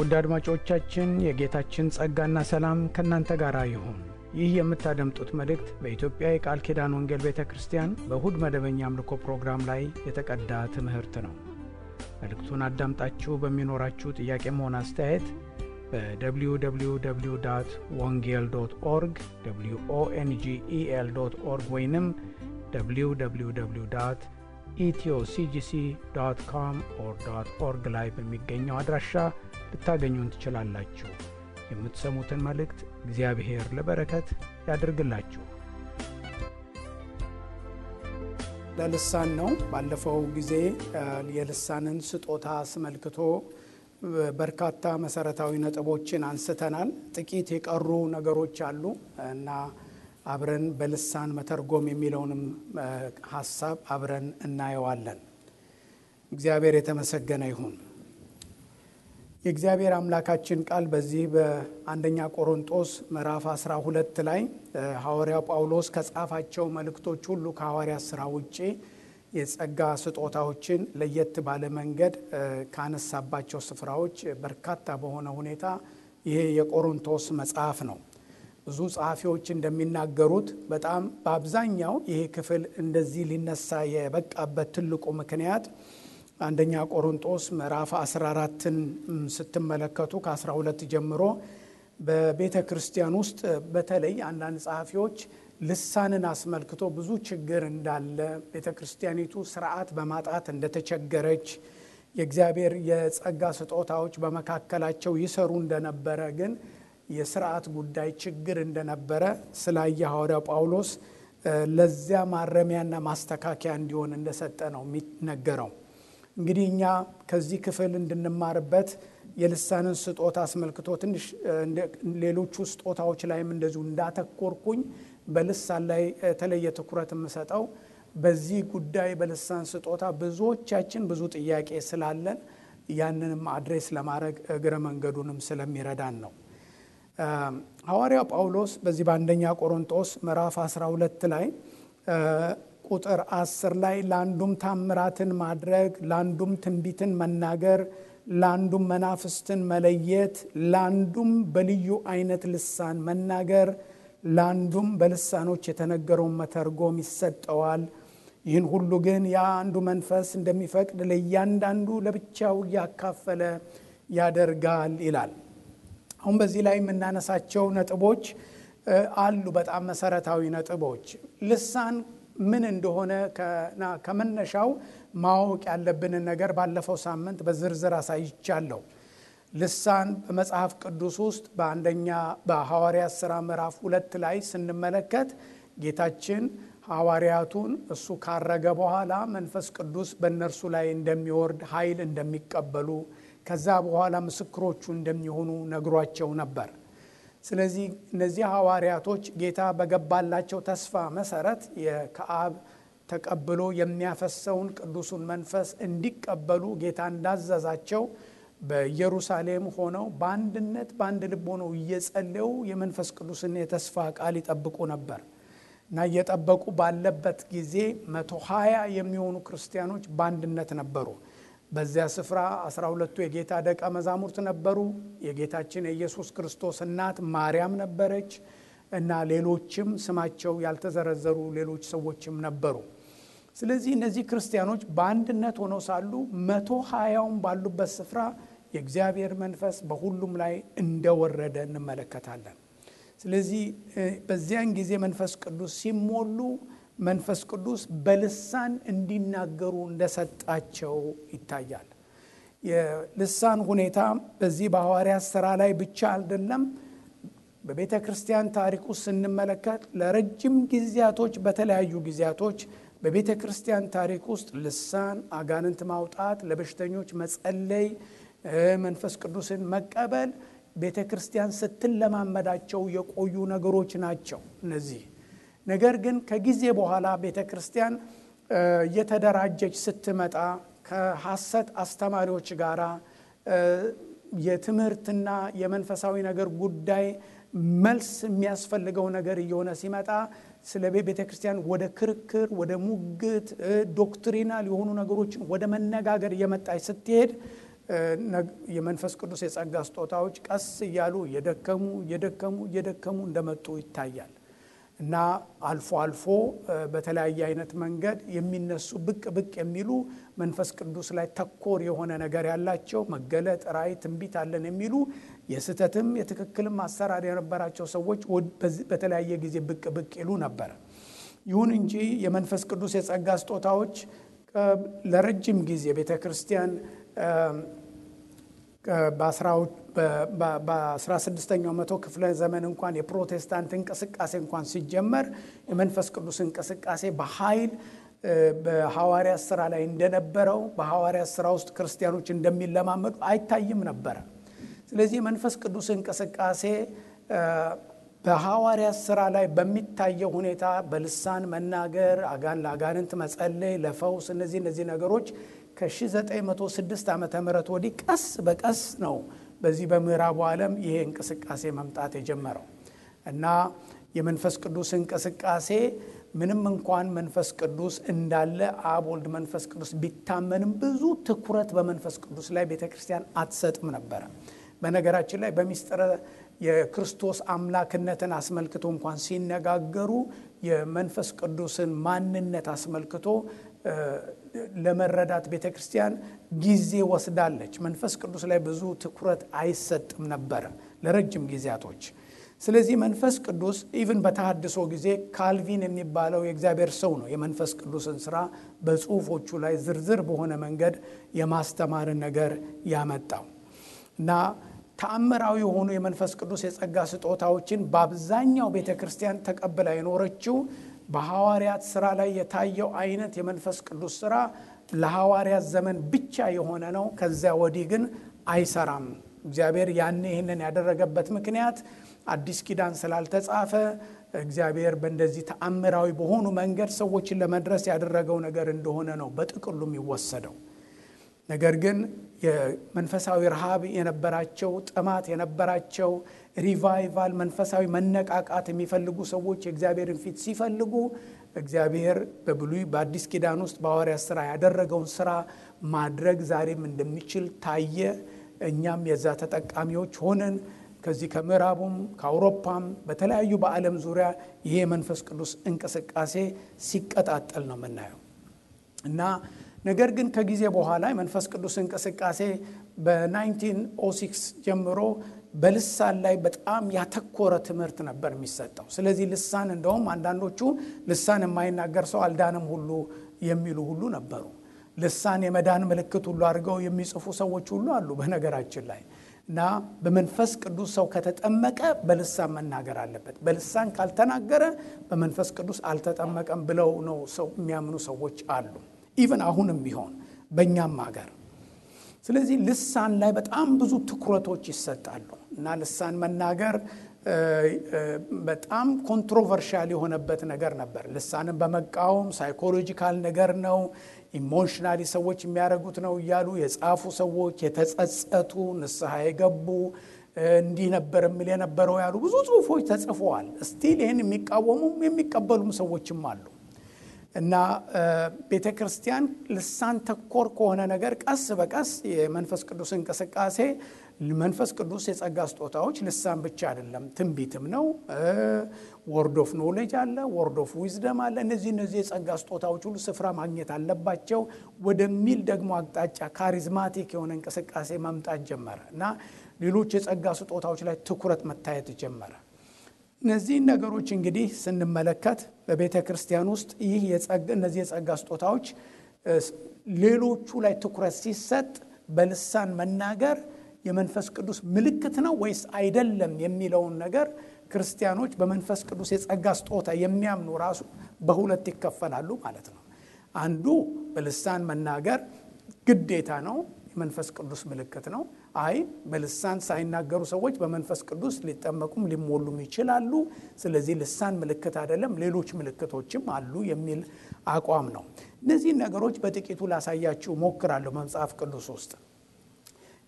ውድ አድማጮቻችን የጌታችን ጸጋና ሰላም ከእናንተ ጋር ይሁን። ይህ የምታደምጡት መልእክት በኢትዮጵያ የቃል ኪዳን ወንጌል ቤተ ክርስቲያን በእሁድ መደበኛ አምልኮ ፕሮግራም ላይ የተቀዳ ትምህርት ነው። መልእክቱን አዳምጣችሁ በሚኖራችሁ ጥያቄም ሆነ አስተያየት በwww.wongel.org wongel.org ወይንም www.ethioCGC.com/org ላይ በሚገኘው አድራሻ ልታገኙን ትችላላችሁ። የምትሰሙትን መልእክት እግዚአብሔር ለበረከት ያድርግላችሁ። ለልሳን ነው። ባለፈው ጊዜ የልሳንን ስጦታ አስመልክቶ በርካታ መሰረታዊ ነጥቦችን አንስተናል። ጥቂት የቀሩ ነገሮች አሉ እና አብረን በልሳን መተርጎም የሚለውንም ሐሳብ አብረን እናየዋለን። እግዚአብሔር የተመሰገነ ይሁን። የእግዚአብሔር አምላካችን ቃል በዚህ በአንደኛ ቆሮንቶስ ምዕራፍ 12 ላይ ሐዋርያው ጳውሎስ ከጻፋቸው መልእክቶች ሁሉ ከሐዋርያት ሥራ ውጪ የጸጋ ስጦታዎችን ለየት ባለ መንገድ ካነሳባቸው ስፍራዎች በርካታ በሆነ ሁኔታ ይሄ የቆሮንቶስ መጽሐፍ ነው። ብዙ ጸሐፊዎች እንደሚናገሩት በጣም በአብዛኛው ይሄ ክፍል እንደዚህ ሊነሳ የበቃበት ትልቁ ምክንያት አንደኛ ቆሮንቶስ ምዕራፍ 14ን ስትመለከቱ ከ12 ጀምሮ በቤተ ክርስቲያን ውስጥ በተለይ አንዳንድ ጸሐፊዎች ልሳንን አስመልክቶ ብዙ ችግር እንዳለ፣ ቤተ ክርስቲያኒቱ ስርዓት በማጣት እንደተቸገረች፣ የእግዚአብሔር የጸጋ ስጦታዎች በመካከላቸው ይሰሩ እንደነበረ ግን የስርዓት ጉዳይ ችግር እንደነበረ ስላየ ሐዋርያው ጳውሎስ ለዚያ ማረሚያና ማስተካከያ እንዲሆን እንደሰጠ ነው የሚነገረው። እንግዲህ እኛ ከዚህ ክፍል እንድንማርበት የልሳንን ስጦታ አስመልክቶ ትንሽ ሌሎቹ ስጦታዎች ላይም እንደዚሁ እንዳተኮርኩኝ በልሳን ላይ የተለየ ትኩረት የምሰጠው በዚህ ጉዳይ በልሳን ስጦታ ብዙዎቻችን ብዙ ጥያቄ ስላለን ያንንም አድሬስ ለማድረግ እግረ መንገዱንም ስለሚረዳን ነው። ሐዋርያው ጳውሎስ በዚህ በአንደኛ ቆሮንቶስ ምዕራፍ 12 ላይ ቁጥር 10 ላይ ለአንዱም ታምራትን ማድረግ፣ ለአንዱም ትንቢትን መናገር፣ ለአንዱም መናፍስትን መለየት፣ ለአንዱም በልዩ አይነት ልሳን መናገር፣ ለአንዱም በልሳኖች የተነገረውን መተርጎም ይሰጠዋል። ይህን ሁሉ ግን ያ አንዱ መንፈስ እንደሚፈቅድ ለእያንዳንዱ ለብቻው እያካፈለ ያደርጋል ይላል። አሁን በዚህ ላይ የምናነሳቸው ነጥቦች አሉ፣ በጣም መሰረታዊ ነጥቦች። ልሳን ምን እንደሆነ ከመነሻው ማወቅ ያለብንን ነገር ባለፈው ሳምንት በዝርዝር አሳይቻለሁ። ልሳን በመጽሐፍ ቅዱስ ውስጥ በሐዋርያት ሥራ ምዕራፍ 2 ላይ ስንመለከት ጌታችን ሐዋርያቱን እሱ ካረገ በኋላ መንፈስ ቅዱስ በእነርሱ ላይ እንደሚወርድ ኃይል እንደሚቀበሉ ከዛ በኋላ ምስክሮቹ እንደሚሆኑ ነግሯቸው ነበር። ስለዚህ እነዚህ ሐዋርያቶች ጌታ በገባላቸው ተስፋ መሰረት ከአብ ተቀብሎ የሚያፈሰውን ቅዱሱን መንፈስ እንዲቀበሉ ጌታ እንዳዘዛቸው በኢየሩሳሌም ሆነው በአንድነት በአንድ ልብ ሆነው እየጸለዩ የመንፈስ ቅዱስን የተስፋ ቃል ይጠብቁ ነበር እና እየጠበቁ ባለበት ጊዜ 120 የሚሆኑ ክርስቲያኖች በአንድነት ነበሩ። በዚያ ስፍራ 12ቱ የጌታ ደቀ መዛሙርት ነበሩ። የጌታችን የኢየሱስ ክርስቶስ እናት ማርያም ነበረች እና ሌሎችም ስማቸው ያልተዘረዘሩ ሌሎች ሰዎችም ነበሩ። ስለዚህ እነዚህ ክርስቲያኖች በአንድነት ሆነው ሳሉ 120ውን ባሉበት ስፍራ የእግዚአብሔር መንፈስ በሁሉም ላይ እንደወረደ እንመለከታለን። ስለዚህ በዚያን ጊዜ መንፈስ ቅዱስ ሲሞሉ መንፈስ ቅዱስ በልሳን እንዲናገሩ እንደሰጣቸው ይታያል። የልሳን ሁኔታ በዚህ በሐዋርያት ሥራ ላይ ብቻ አይደለም። በቤተ ክርስቲያን ታሪክ ውስጥ ስንመለከት ለረጅም ጊዜያቶች በተለያዩ ጊዜያቶች በቤተ ክርስቲያን ታሪክ ውስጥ ልሳን፣ አጋንንት ማውጣት፣ ለበሽተኞች መጸለይ፣ መንፈስ ቅዱስን መቀበል ቤተ ክርስቲያን ስትለማመዳቸው የቆዩ ነገሮች ናቸው እነዚህ። ነገር ግን ከጊዜ በኋላ ቤተ ክርስቲያን እየተደራጀች ስትመጣ ከሐሰት አስተማሪዎች ጋር የትምህርትና የመንፈሳዊ ነገር ጉዳይ መልስ የሚያስፈልገው ነገር እየሆነ ሲመጣ ስለ ቤተ ክርስቲያን ወደ ክርክር፣ ወደ ሙግት፣ ዶክትሪናል የሆኑ ነገሮችን ወደ መነጋገር እየመጣች ስትሄድ የመንፈስ ቅዱስ የጸጋ ስጦታዎች ቀስ እያሉ እየደከሙ እንደመጡ ይታያል። እና አልፎ አልፎ በተለያየ አይነት መንገድ የሚነሱ ብቅ የሚሉ መንፈስ ቅዱስ ላይ ተኮር የሆነ ነገር ያላቸው መገለጥ፣ ራእይ፣ ትንቢት አለን የሚሉ የስተትም የትክክልም አሰራር የነበራቸው ሰዎች በተለያየ ጊዜ ብቅ ይሉ ነበር። ይሁን እንጂ የመንፈስ ቅዱስ የጸጋ ስጦታዎች ለረጅም ጊዜ ቤተክርስቲያን በ16ኛው መቶ ክፍለ ዘመን እንኳን የፕሮቴስታንት እንቅስቃሴ እንኳን ሲጀመር የመንፈስ ቅዱስ እንቅስቃሴ በኃይል በሐዋርያት ሥራ ላይ እንደነበረው በሐዋርያት ሥራ ውስጥ ክርስቲያኖች እንደሚለማመዱ አይታይም ነበር። ስለዚህ የመንፈስ ቅዱስ እንቅስቃሴ በሐዋርያት ሥራ ላይ በሚታየው ሁኔታ በልሳን መናገር፣ ለአጋንንት መጸለይ፣ ለፈውስ እነዚህ ነገሮች ከ1906 ዓመተ ምህረት ወዲህ ቀስ በቀስ ነው በዚህ በምዕራቡ ዓለም ይሄ እንቅስቃሴ መምጣት የጀመረው። እና የመንፈስ ቅዱስ እንቅስቃሴ ምንም እንኳን መንፈስ ቅዱስ እንዳለ አብ፣ ወልድ፣ መንፈስ ቅዱስ ቢታመንም ብዙ ትኩረት በመንፈስ ቅዱስ ላይ ቤተክርስቲያን አትሰጥም ነበር። በነገራችን ላይ በሚስጥረ የክርስቶስ አምላክነትን አስመልክቶ እንኳን ሲነጋገሩ የመንፈስ ቅዱስን ማንነት አስመልክቶ ለመረዳት ቤተክርስቲያን ጊዜ ወስዳለች። መንፈስ ቅዱስ ላይ ብዙ ትኩረት አይሰጥም ነበር ለረጅም ጊዜያቶች። ስለዚህ መንፈስ ቅዱስ ኢቭን በተሐድሶ ጊዜ ካልቪን የሚባለው የእግዚአብሔር ሰው ነው የመንፈስ ቅዱስን ስራ በጽሁፎቹ ላይ ዝርዝር በሆነ መንገድ የማስተማርን ነገር ያመጣው። እና ተአምራዊ የሆኑ የመንፈስ ቅዱስ የጸጋ ስጦታዎችን በአብዛኛው ቤተክርስቲያን ተቀብላ የኖረችው በሐዋርያት ሥራ ላይ የታየው አይነት የመንፈስ ቅዱስ ሥራ ለሐዋርያት ዘመን ብቻ የሆነ ነው። ከዚያ ወዲህ ግን አይሰራም። እግዚአብሔር ይህንን ያደረገበት ምክንያት አዲስ ኪዳን ስላልተጻፈ እግዚአብሔር በእንደዚህ ተአምራዊ በሆኑ መንገድ ሰዎችን ለመድረስ ያደረገው ነገር እንደሆነ ነው በጥቅሉ የሚወሰደው። ነገር ግን የመንፈሳዊ ረሃብ የነበራቸው፣ ጥማት የነበራቸው፣ ሪቫይቫል መንፈሳዊ መነቃቃት የሚፈልጉ ሰዎች የእግዚአብሔርን ፊት ሲፈልጉ እግዚአብሔር በብሉይ በአዲስ ኪዳን ውስጥ በሐዋርያት ሥራ ያደረገውን ሥራ ማድረግ ዛሬም እንደሚችል ታየ። እኛም የዛ ተጠቃሚዎች ሆነን ከዚህ ከምዕራቡም ከአውሮፓም በተለያዩ በዓለም ዙሪያ ይሄ መንፈስ ቅዱስ እንቅስቃሴ ሲቀጣጠል ነው የምናየው። እና ነገር ግን ከጊዜ በኋላ የመንፈስ ቅዱስ እንቅስቃሴ በ1906 ጀምሮ በልሳን ላይ በጣም ያተኮረ ትምህርት ነበር የሚሰጠው። ስለዚህ ልሳን እንደውም አንዳንዶቹ ልሳን የማይናገር ሰው አልዳንም ሁሉ የሚሉ ሁሉ ነበሩ። ልሳን የመዳን ምልክት ሁሉ አድርገው የሚጽፉ ሰዎች ሁሉ አሉ በነገራችን ላይ። እና በመንፈስ ቅዱስ ሰው ከተጠመቀ በልሳን መናገር አለበት፣ በልሳን ካልተናገረ በመንፈስ ቅዱስ አልተጠመቀም ብለው ነው ሰው የሚያምኑ ሰዎች አሉ። ኢቭን አሁንም ቢሆን በእኛም ሀገር። ስለዚህ ልሳን ላይ በጣም ብዙ ትኩረቶች ይሰጣሉ። እና ልሳን መናገር በጣም ኮንትሮቨርሻል የሆነበት ነገር ነበር። ልሳንን በመቃወም ሳይኮሎጂካል ነገር ነው፣ ኢሞሽናሊ ሰዎች የሚያደርጉት ነው እያሉ የጻፉ ሰዎች፣ የተጸጸቱ ንስሐ የገቡ እንዲህ ነበር የሚል የነበረው ያሉ ብዙ ጽሁፎች ተጽፈዋል። ስቲል ይህን የሚቃወሙም የሚቀበሉም ሰዎችም አሉ። እና ቤተክርስቲያን ልሳን ተኮር ከሆነ ነገር ቀስ በቀስ የመንፈስ ቅዱስ እንቅስቃሴ መንፈስ ቅዱስ የጸጋ ስጦታዎች ልሳን ብቻ አይደለም፣ ትንቢትም ነው፣ ወርድ ኦፍ ኖሌጅ አለ፣ ወርድ ኦፍ ዊዝደም አለ። እነዚህ የጸጋ ስጦታዎች ሁሉ ስፍራ ማግኘት አለባቸው ወደሚል ደግሞ አቅጣጫ ካሪዝማቲክ የሆነ እንቅስቃሴ መምጣት ጀመረ። እና ሌሎች የጸጋ ስጦታዎች ላይ ትኩረት መታየት ጀመረ። እነዚህን ነገሮች እንግዲህ ስንመለከት በቤተ ክርስቲያን ውስጥ እነዚህ የጸጋ ስጦታዎች ሌሎቹ ላይ ትኩረት ሲሰጥ በልሳን መናገር የመንፈስ ቅዱስ ምልክት ነው ወይስ አይደለም የሚለውን ነገር ክርስቲያኖች በመንፈስ ቅዱስ የጸጋ ስጦታ የሚያምኑ ራሱ በሁለት ይከፈላሉ ማለት ነው። አንዱ በልሳን መናገር ግዴታ ነው፣ የመንፈስ ቅዱስ ምልክት ነው። በልሳን ሳይናገሩ ሰዎች በመንፈስ ቅዱስ ሊጠመቁም ሊሞሉም ይችላሉ፣ ስለዚህ ልሳን ምልክት አይደለም፣ ሌሎች ምልክቶችም አሉ የሚል አቋም ነው። እነዚህ ነገሮች በጥቂቱ ላሳያችሁ ሞክራለሁ መጽሐፍ ቅዱስ ውስጥ።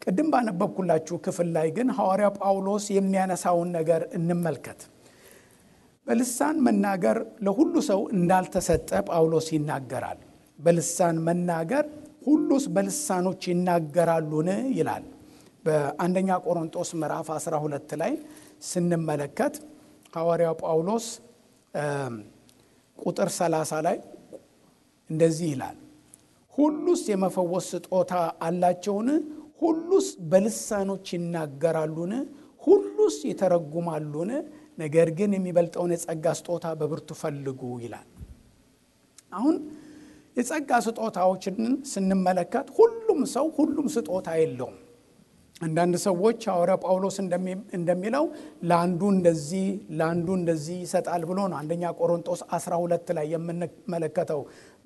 ቅድም ባነበብኩላችሁ ክፍል ላይ ግን ሐዋርያው ጳውሎስ የሚያነሳውን ነገር እንመልከት። በልሳን መናገር ለሁሉ ሰው እንዳልተሰጠ ጳውሎስ ይናገራል። በልሳን መናገር ሁሉስ በልሳኖች ይናገራሉን ይላል። በአንደኛ ቆሮንቶስ ምዕራፍ 12 ላይ ስንመለከት ሐዋርያው ጳውሎስ ቁጥር 30 ላይ እንደዚህ ይላል፣ ሁሉስ የመፈወስ ስጦታ አላቸውን? ሁሉስ በልሳኖች ይናገራሉን? ሁሉስ ይተረጉማሉን? ነገር ግን የሚበልጠውን የጸጋ ስጦታ በብርቱ ፈልጉ ይላል። አሁን የጸጋ ስጦታዎችን ስንመለከት ሁሉም ሰው ሁሉም ስጦታ የለውም። አንዳንድ ሰዎች ሐዋርያ ጳውሎስ እንደሚለው ለአንዱ እንደዚህ ይሰጣል ብሎ ነው አንደኛ ቆሮንቶስ 12 ላይ የምንመለከተው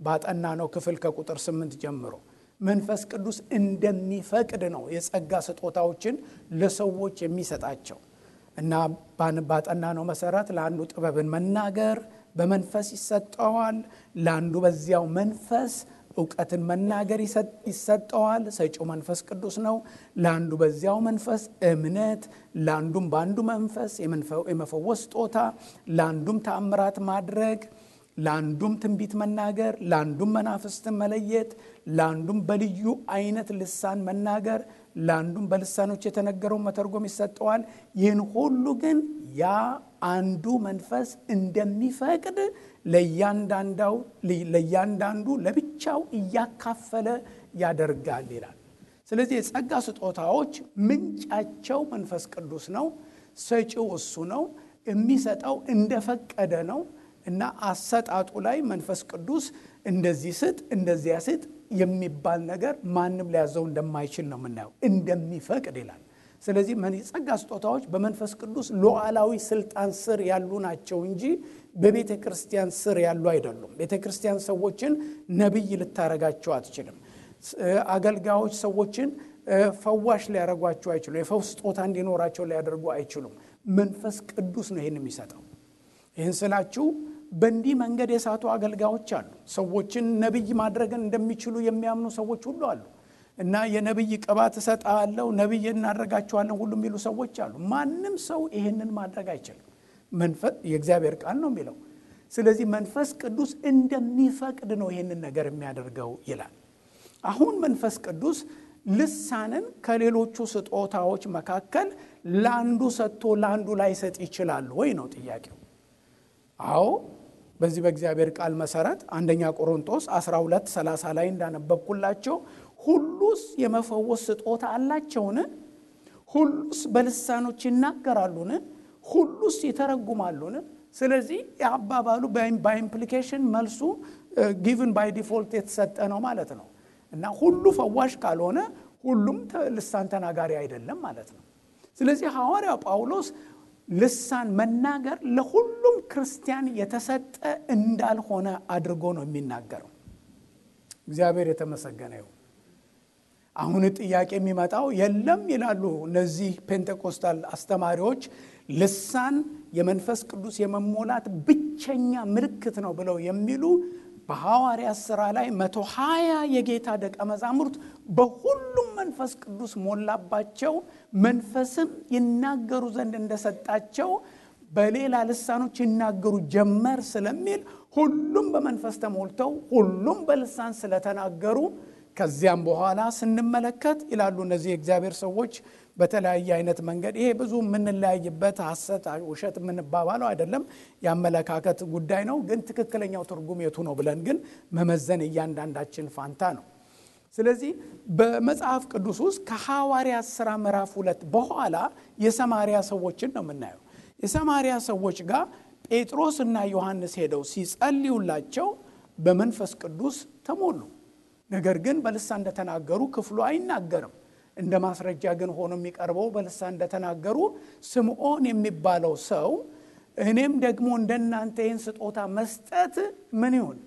ባጠናነው ክፍል ከቁጥር 8 ጀምሮ መንፈስ ቅዱስ እንደሚፈቅድ ነው የጸጋ ስጦታዎችን ለሰዎች የሚሰጣቸው እና ባጠናነው መሰረት ለአንዱ ጥበብን መናገር በመንፈስ ይሰጠዋል፣ ለአንዱ በዚያው መንፈስ ዕውቀትን መናገር ይሰጠዋል፣ ሰጪው መንፈስ ቅዱስ ነው። ለአንዱ በዚያው መንፈስ እምነት፣ ለአንዱም በአንዱ መንፈስ የመፈወስ ስጦታ፣ ለአንዱም ተአምራት ማድረግ፣ ለአንዱም ትንቢት መናገር፣ ለአንዱም መናፍስትን መለየት፣ ለአንዱም በልዩ አይነት ልሳን መናገር፣ ለአንዱም በልሳኖች የተነገረው መተርጎም ይሰጠዋል። ይህን ሁሉ ግን ያ አንዱ መንፈስ እንደሚፈቅድ ለእያንዳንዱ ለብቻው እያካፈለ ያደርጋል ይላል። ስለዚህ የጸጋ ስጦታዎች ምንጫቸው መንፈስ ቅዱስ ነው። ሰጪው እሱ ነው። የሚሰጠው እንደፈቀደ ነው እና አሰጣጡ ላይ መንፈስ ቅዱስ እንደዚህ ስጥ እንደዚያ ስጥ የሚባል ነገር ማንም ሊያዘው እንደማይችል ነው የምናየው። እንደሚፈቅድ ይላል። ስለዚህ የጸጋ ስጦታዎች በመንፈስ ቅዱስ ሉዓላዊ ስልጣን ስር ያሉ ናቸው እንጂ በቤተ ክርስቲያን ስር ያሉ አይደሉም። ቤተ ክርስቲያን ሰዎችን ነብይ ልታረጋቸው አትችልም። አገልጋዮች ሰዎችን ፈዋሽ ሊያረጓቸው አይችሉም። የፈውስ ስጦታ እንዲኖራቸው ሊያደርጉ አይችሉም። መንፈስ ቅዱስ ነው ይህን የሚሰጠው። ይህን ስላችሁ በእንዲህ መንገድ የሳቱ አገልጋዮች አሉ። ሰዎችን ነብይ ማድረግን እንደሚችሉ የሚያምኑ ሰዎች ሁሉ አሉ እና የነብይ ቅባት እሰጣለሁ ነብይ እናደርጋቸዋለን ሁሉ የሚሉ ሰዎች አሉ። ማንም ሰው ይሄንን ማድረግ አይችልም። መንፈስ የእግዚአብሔር ቃል ነው የሚለው። ስለዚህ መንፈስ ቅዱስ እንደሚፈቅድ ነው ይሄንን ነገር የሚያደርገው ይላል። አሁን መንፈስ ቅዱስ ልሳንን ከሌሎቹ ስጦታዎች መካከል ለአንዱ ሰጥቶ ለአንዱ ላይሰጥ ይችላል ወይ ነው ጥያቄው። አዎ በዚህ በእግዚአብሔር ቃል መሰረት አንደኛ ቆሮንቶስ 12:30 ላይ እንዳነበብኩላቸው ሁሉስ የመፈወስ ስጦታ አላቸውን? ሁሉስ በልሳኖች ይናገራሉን? ሁሉስ ይተረጉማሉን? ስለዚህ የአባባሉ በኢምፕሊኬሽን መልሱ ጊቭን ባይ ዲፎልት የተሰጠ ነው ማለት ነው እና ሁሉ ፈዋሽ ካልሆነ ሁሉም ልሳን ተናጋሪ አይደለም ማለት ነው። ስለዚህ ሐዋርያው ጳውሎስ ልሳን መናገር ለሁሉም ክርስቲያን የተሰጠ እንዳልሆነ አድርጎ ነው የሚናገረው። እግዚአብሔር የተመሰገነ ይሁን። አሁን ጥያቄ የሚመጣው የለም ይላሉ እነዚህ ፔንቴኮስታል አስተማሪዎች ልሳን የመንፈስ ቅዱስ የመሞላት ብቸኛ ምልክት ነው ብለው የሚሉ በሐዋርያት ሥራ ላይ 120 የጌታ ደቀ መዛሙርት በሁሉም መንፈስ ቅዱስ ሞላባቸው፣ መንፈስም ይናገሩ ዘንድ እንደሰጣቸው በሌላ ልሳኖች ይናገሩ ጀመር ስለሚል ሁሉም በመንፈስ ተሞልተው ሁሉም በልሳን ስለተናገሩ ከዚያም በኋላ ስንመለከት ይላሉ እነዚህ የእግዚአብሔር ሰዎች በተለያየ አይነት መንገድ ይሄ ብዙ የምንለያይበት ሐሰት ውሸት የምንባባለው አይደለም፣ ያመለካከት ጉዳይ ነው። ግን ትክክለኛው ትርጉም የቱ ነው ብለን ግን መመዘን እያንዳንዳችን ፋንታ ነው። ስለዚህ በመጽሐፍ ቅዱስ ውስጥ ከሐዋርያት ሥራ ምዕራፍ 2 በኋላ የሰማርያ ሰዎችን ነው የምናየው። የሰማርያ ሰዎች ጋር ጴጥሮስና ዮሐንስ ሄደው ሲጸልዩላቸው በመንፈስ ቅዱስ ተሞሉ። ነገር ግን በልሳን እንደተናገሩ ክፍሉ አይናገርም። እንደ ማስረጃ ግን ሆኖ የሚቀርበው በልሳን እንደተናገሩ ስምዖን የሚባለው ሰው እኔም ደግሞ እንደናንተ ይህን ስጦታ መስጠት ምን ይሁን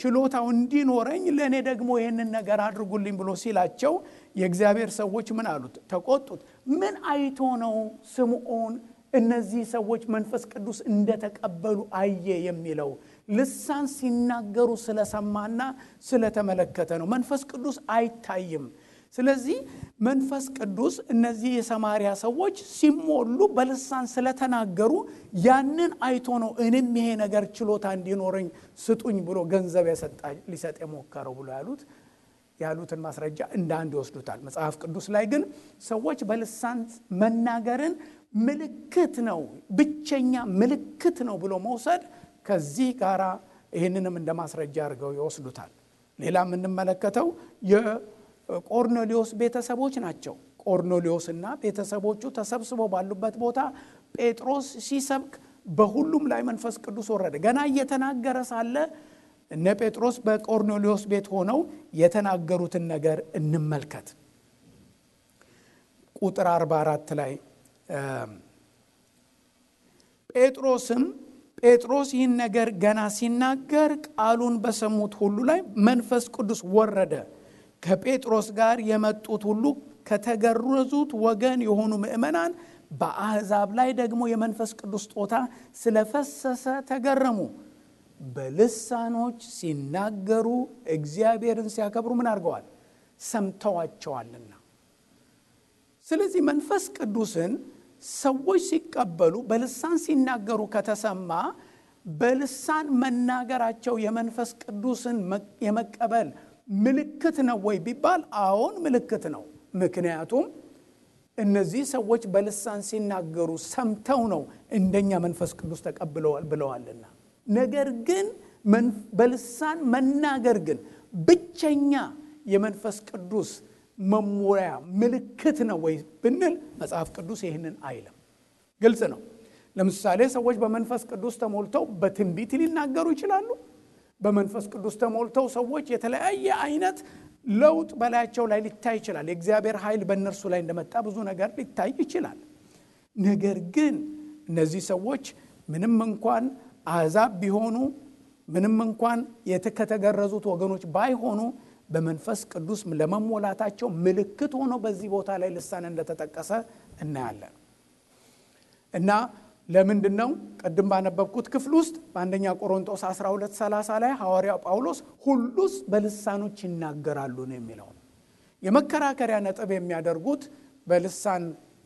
ችሎታው እንዲኖረኝ ለእኔ ደግሞ ይህንን ነገር አድርጉልኝ ብሎ ሲላቸው የእግዚአብሔር ሰዎች ምን አሉት? ተቆጡት። ምን አይቶ ነው ስምዖን እነዚህ ሰዎች መንፈስ ቅዱስ እንደተቀበሉ አየ የሚለው? ልሳን ሲናገሩ ስለሰማና ስለተመለከተ ነው። መንፈስ ቅዱስ አይታይም። ስለዚህ መንፈስ ቅዱስ እነዚህ የሰማርያ ሰዎች ሲሞሉ በልሳን ስለተናገሩ ያንን አይቶ ነው እኔም ይሄ ነገር ችሎታ እንዲኖረኝ ስጡኝ ብሎ ገንዘብ ሊሰጥ የሞከረው ብሎ ያሉት ያሉትን ማስረጃ እንደ አንድ ይወስዱታል። መጽሐፍ ቅዱስ ላይ ግን ሰዎች በልሳን መናገርን ምልክት ነው፣ ብቸኛ ምልክት ነው ብሎ መውሰድ ከዚህ ጋር ይህንንም እንደ ማስረጃ አድርገው ይወስዱታል። ሌላ የምንመለከተው የቆርኔሌዎስ ቤተሰቦች ናቸው። ቆርኔሌዎስና ቤተሰቦቹ ተሰብስበው ባሉበት ቦታ ጴጥሮስ ሲሰብክ በሁሉም ላይ መንፈስ ቅዱስ ወረደ። ገና እየተናገረ ሳለ እነ ጴጥሮስ በቆርኔሌዎስ ቤት ሆነው የተናገሩትን ነገር እንመልከት። ቁጥር 44 ላይ ጴጥሮስ ይህን ነገር ገና ሲናገር ቃሉን በሰሙት ሁሉ ላይ መንፈስ ቅዱስ ወረደ። ከጴጥሮስ ጋር የመጡት ሁሉ ከተገረዙት ወገን የሆኑ ምእመናን በአሕዛብ ላይ ደግሞ የመንፈስ ቅዱስ ስጦታ ስለፈሰሰ ተገረሙ። በልሳኖች ሲናገሩ እግዚአብሔርን ሲያከብሩ ምን አድርገዋል? ሰምተዋቸዋልና። ስለዚህ መንፈስ ቅዱስን ሰዎች ሲቀበሉ በልሳን ሲናገሩ ከተሰማ በልሳን መናገራቸው የመንፈስ ቅዱስን የመቀበል ምልክት ነው ወይ ቢባል አዎን ምልክት ነው። ምክንያቱም እነዚህ ሰዎች በልሳን ሲናገሩ ሰምተው ነው እንደኛ መንፈስ ቅዱስ ተቀብለዋል ብለዋልና። ነገር ግን በልሳን መናገር ግን ብቸኛ የመንፈስ ቅዱስ መሞያ ምልክት ነው ወይ ብንል መጽሐፍ ቅዱስ ይህንን አይልም። ግልጽ ነው። ለምሳሌ ሰዎች በመንፈስ ቅዱስ ተሞልተው በትንቢት ሊናገሩ ይችላሉ። በመንፈስ ቅዱስ ተሞልተው ሰዎች የተለያየ አይነት ለውጥ በላያቸው ላይ ሊታይ ይችላል። የእግዚአብሔር ኃይል በእነርሱ ላይ እንደመጣ ብዙ ነገር ሊታይ ይችላል። ነገር ግን እነዚህ ሰዎች ምንም እንኳን አሕዛብ ቢሆኑ፣ ምንም እንኳን ከተገረዙት ወገኖች ባይሆኑ በመንፈስ ቅዱስ ለመሞላታቸው ምልክት ሆኖ በዚህ ቦታ ላይ ልሳን እንደተጠቀሰ እናያለን። እና ለምንድነው ቅድም ባነበብኩት ክፍል ውስጥ በአንደኛ ቆሮንቶስ 12:30 ላይ ሐዋርያው ጳውሎስ ሁሉስ በልሳኖች ይናገራሉ ነው የሚለው። የመከራከሪያ ነጥብ የሚያደርጉት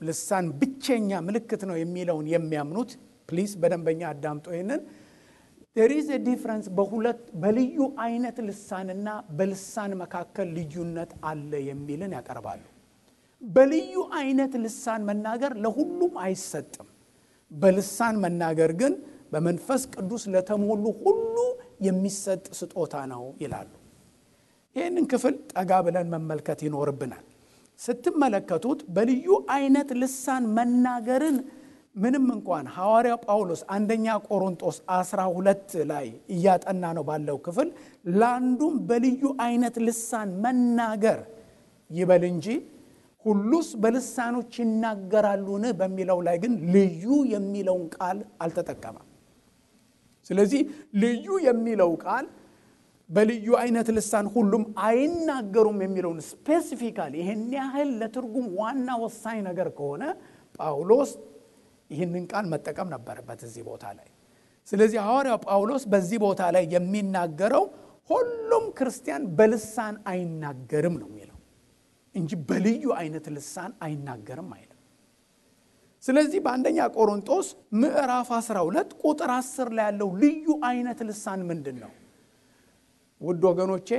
ልሳን ብቸኛ ምልክት ነው የሚለውን የሚያምኑት ፕሊዝ በደንበኛ አዳምጡ ይሄንን there is a difference በልዩ አይነት ልሳንና በልሳን መካከል ልዩነት አለ የሚልን ያቀርባሉ። በልዩ አይነት ልሳን መናገር ለሁሉም አይሰጥም። በልሳን መናገር ግን በመንፈስ ቅዱስ ለተሞሉ ሁሉ የሚሰጥ ስጦታ ነው ይላሉ። ይህንን ክፍል ጠጋ ብለን መመልከት ይኖርብናል። ስትመለከቱት በልዩ አይነት ልሳን መናገርን ምንም እንኳን ሐዋርያው ጳውሎስ አንደኛ ቆሮንቶስ 12 ላይ እያጠና ነው ባለው ክፍል ለአንዱም በልዩ አይነት ልሳን መናገር ይበል እንጂ ሁሉስ በልሳኖች ይናገራሉን በሚለው ላይ ግን ልዩ የሚለውን ቃል አልተጠቀመም። ስለዚህ ልዩ የሚለው ቃል በልዩ አይነት ልሳን ሁሉም አይናገሩም የሚለውን ስፔሲፊካሊ ይሄን ያህል ለትርጉም ዋና ወሳኝ ነገር ከሆነ ጳውሎስ ይህንን ቃል መጠቀም ነበረበት እዚህ ቦታ ላይ። ስለዚህ ሐዋርያው ጳውሎስ በዚህ ቦታ ላይ የሚናገረው ሁሉም ክርስቲያን በልሳን አይናገርም ነው የሚለው እንጂ በልዩ አይነት ልሳን አይናገርም አይልም። ስለዚህ በአንደኛ ቆሮንቶስ ምዕራፍ 12 ቁጥር 10 ላይ ያለው ልዩ አይነት ልሳን ምንድን ነው? ውድ ወገኖቼ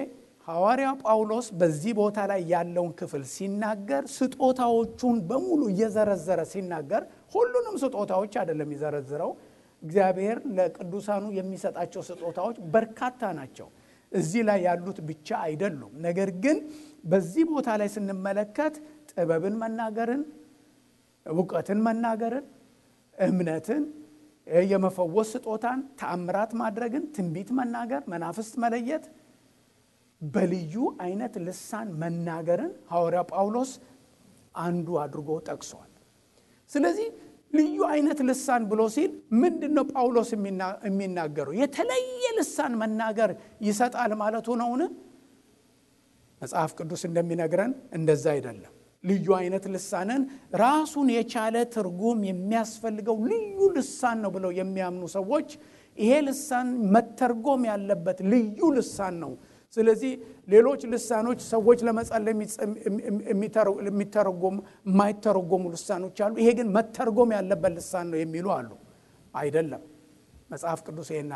ሐዋርያው ጳውሎስ በዚህ ቦታ ላይ ያለውን ክፍል ሲናገር ስጦታዎቹን በሙሉ እየዘረዘረ ሲናገር ሁሉንም ስጦታዎች አይደለም ይዘረዝረው። እግዚአብሔር ለቅዱሳኑ የሚሰጣቸው ስጦታዎች በርካታ ናቸው። እዚህ ላይ ያሉት ብቻ አይደሉም። ነገር ግን በዚህ ቦታ ላይ ስንመለከት ጥበብን መናገርን፣ ዕውቀትን መናገርን፣ እምነትን፣ የመፈወስ ስጦታን፣ ተአምራት ማድረግን፣ ትንቢት መናገር፣ መናፍስት መለየት፣ በልዩ አይነት ልሳን መናገርን ሐዋርያው ጳውሎስ አንዱ አድርጎ ጠቅሷል። ስለዚህ ልዩ አይነት ልሳን ብሎ ሲል ምንድነው ጳውሎስ የሚናገረው? የተለየ ልሳን መናገር ይሰጣል ማለቱ ነውን? መጽሐፍ ቅዱስ እንደሚነግረን እንደዛ አይደለም። ልዩ አይነት ልሳንን ራሱን የቻለ ትርጉም የሚያስፈልገው ልዩ ልሳን ነው ብለው የሚያምኑ ሰዎች ይሄ ልሳን መተርጎም ያለበት ልዩ ልሳን ነው። ስለዚህ ሌሎች ልሳኖች ሰዎች ለመጸለይ የማይተረጎሙ ልሳኖች አሉ። ይሄ ግን መተርጎም ያለበት ልሳን ነው የሚሉ አሉ። አይደለም። መጽሐፍ ቅዱስ ይሄን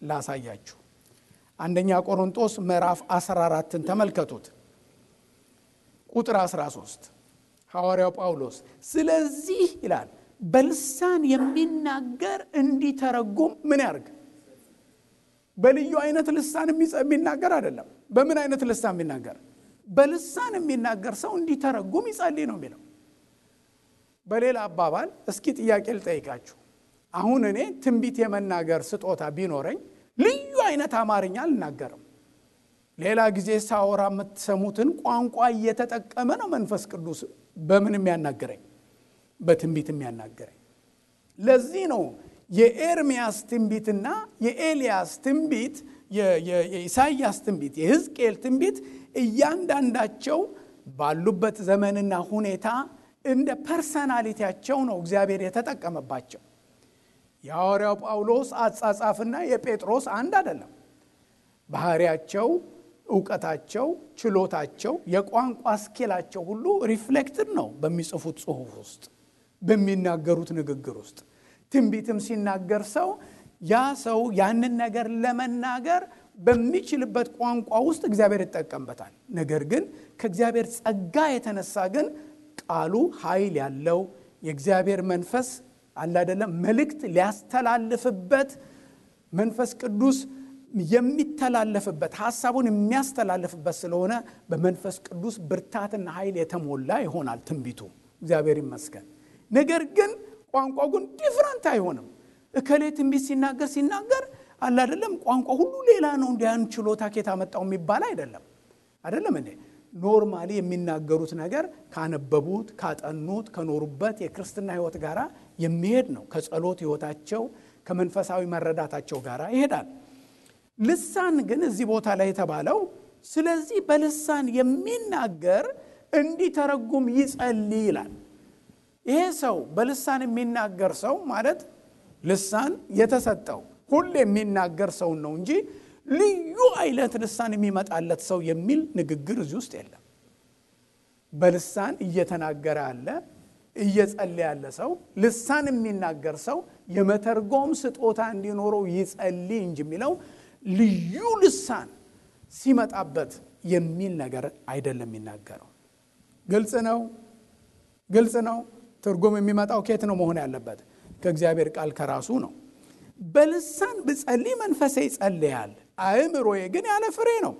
ላሳያችሁ። አንደኛ ቆሮንቶስ ምዕራፍ 14ን ተመልከቱት። ቁጥር 13 ሐዋርያው ጳውሎስ ስለዚህ ይላል በልሳን የሚናገር እንዲተረጉም ምን ያርግ? በልዩ አይነት ልሳን የሚናገር አይደለም። በምን አይነት ልሳን የሚናገር? በልሳን የሚናገር ሰው እንዲተረጉም ይጸልይ ነው የሚለው። በሌላ አባባል እስኪ ጥያቄ ልጠይቃችሁ። አሁን እኔ ትንቢት የመናገር ስጦታ ቢኖረኝ ልዩ አይነት አማርኛ አልናገርም። ሌላ ጊዜ ሳወራ የምትሰሙትን ቋንቋ እየተጠቀመ ነው መንፈስ ቅዱስ በምን የሚያናገረኝ? በትንቢት የሚያናገረኝ። ለዚህ ነው የኤርሚያስ ትንቢትና የኤልያስ ትንቢት፣ የኢሳይያስ ትንቢት፣ የሕዝቅኤል ትንቢት እያንዳንዳቸው ባሉበት ዘመንና ሁኔታ እንደ ፐርሰናሊቲያቸው ነው እግዚአብሔር የተጠቀመባቸው። የሐዋርያው ጳውሎስ አጻጻፍና የጴጥሮስ አንድ አይደለም። ባህሪያቸው፣ ዕውቀታቸው፣ ችሎታቸው፣ የቋንቋ ስኪላቸው ሁሉ ሪፍሌክትድ ነው በሚጽፉት ጽሑፍ ውስጥ፣ በሚናገሩት ንግግር ውስጥ። ትንቢትም ሲናገር ያ ሰው ያንን ነገር ለመናገር በሚችልበት ቋንቋ ውስጥ እግዚአብሔር ይጠቀምበታል። ነገር ግን ከእግዚአብሔር ጸጋ የተነሳ ግን ቃሉ ኃይል ያለው የእግዚአብሔር መንፈስ አለ አይደለም መልእክት ሊያስተላልፍበት መንፈስ ቅዱስ የሚተላለፍበት ሐሳቡን የሚያስተላልፍበት ስለሆነ በመንፈስ ቅዱስ ብርታትና ኃይል የተሞላ ይሆናል ትንቢቱ። እግዚአብሔር ይመስገን። ነገር ግን ቋንቋው ግን ዲፍረንት አይሆንም። እከሌ ትንቢት ሲናገር አለ አይደለም ቋንቋ ሁሉ ሌላ ነው እንዲያን ችሎታ ከየት አመጣው የሚባል አይደለም እንዴ። ኖርማሊ የሚናገሩት ነገር ካነበቡት፣ ካጠኑት፣ ከኖሩበት የክርስትና ሕይወት ጋራ የሚሄድ ነው። ከጸሎት ሕይወታቸው ከመንፈሳዊ መረዳታቸው ጋራ ይሄዳል። ልሳን ግን እዚህ ቦታ ላይ የተባለው ስለዚህ በልሳን የሚናገር እንዲተረጉም ይጸልይ ይላል። ይሄ ሰው በልሳን የሚናገር ሰው ማለት ልሳን የተሰጠው ሁሉ የሚናገር ሰው ነው እንጂ ልዩ አይነት ልሳን የሚመጣለት ሰው የሚል ንግግር እዚህ ውስጥ የለም። በልሳን እየተናገረ ያለ እየጸለየ ያለ ሰው ልሳን የሚናገር ሰው የመተርጎም ስጦታ እንዲኖረው ይጸልይ እንጂ የሚለው ልዩ ልሳን ሲመጣበት የሚል ነገር አይደለም የሚናገረው። ግልጽ ነው። ትርጉም የሚመጣው ከየት ነው መሆን ያለበት? ከእግዚአብሔር ቃል ከራሱ ነው። በልሳን ብጸልይ መንፈሴ ይጸልያል፣ አእምሮዬ ግን ያለ ፍሬ ነው።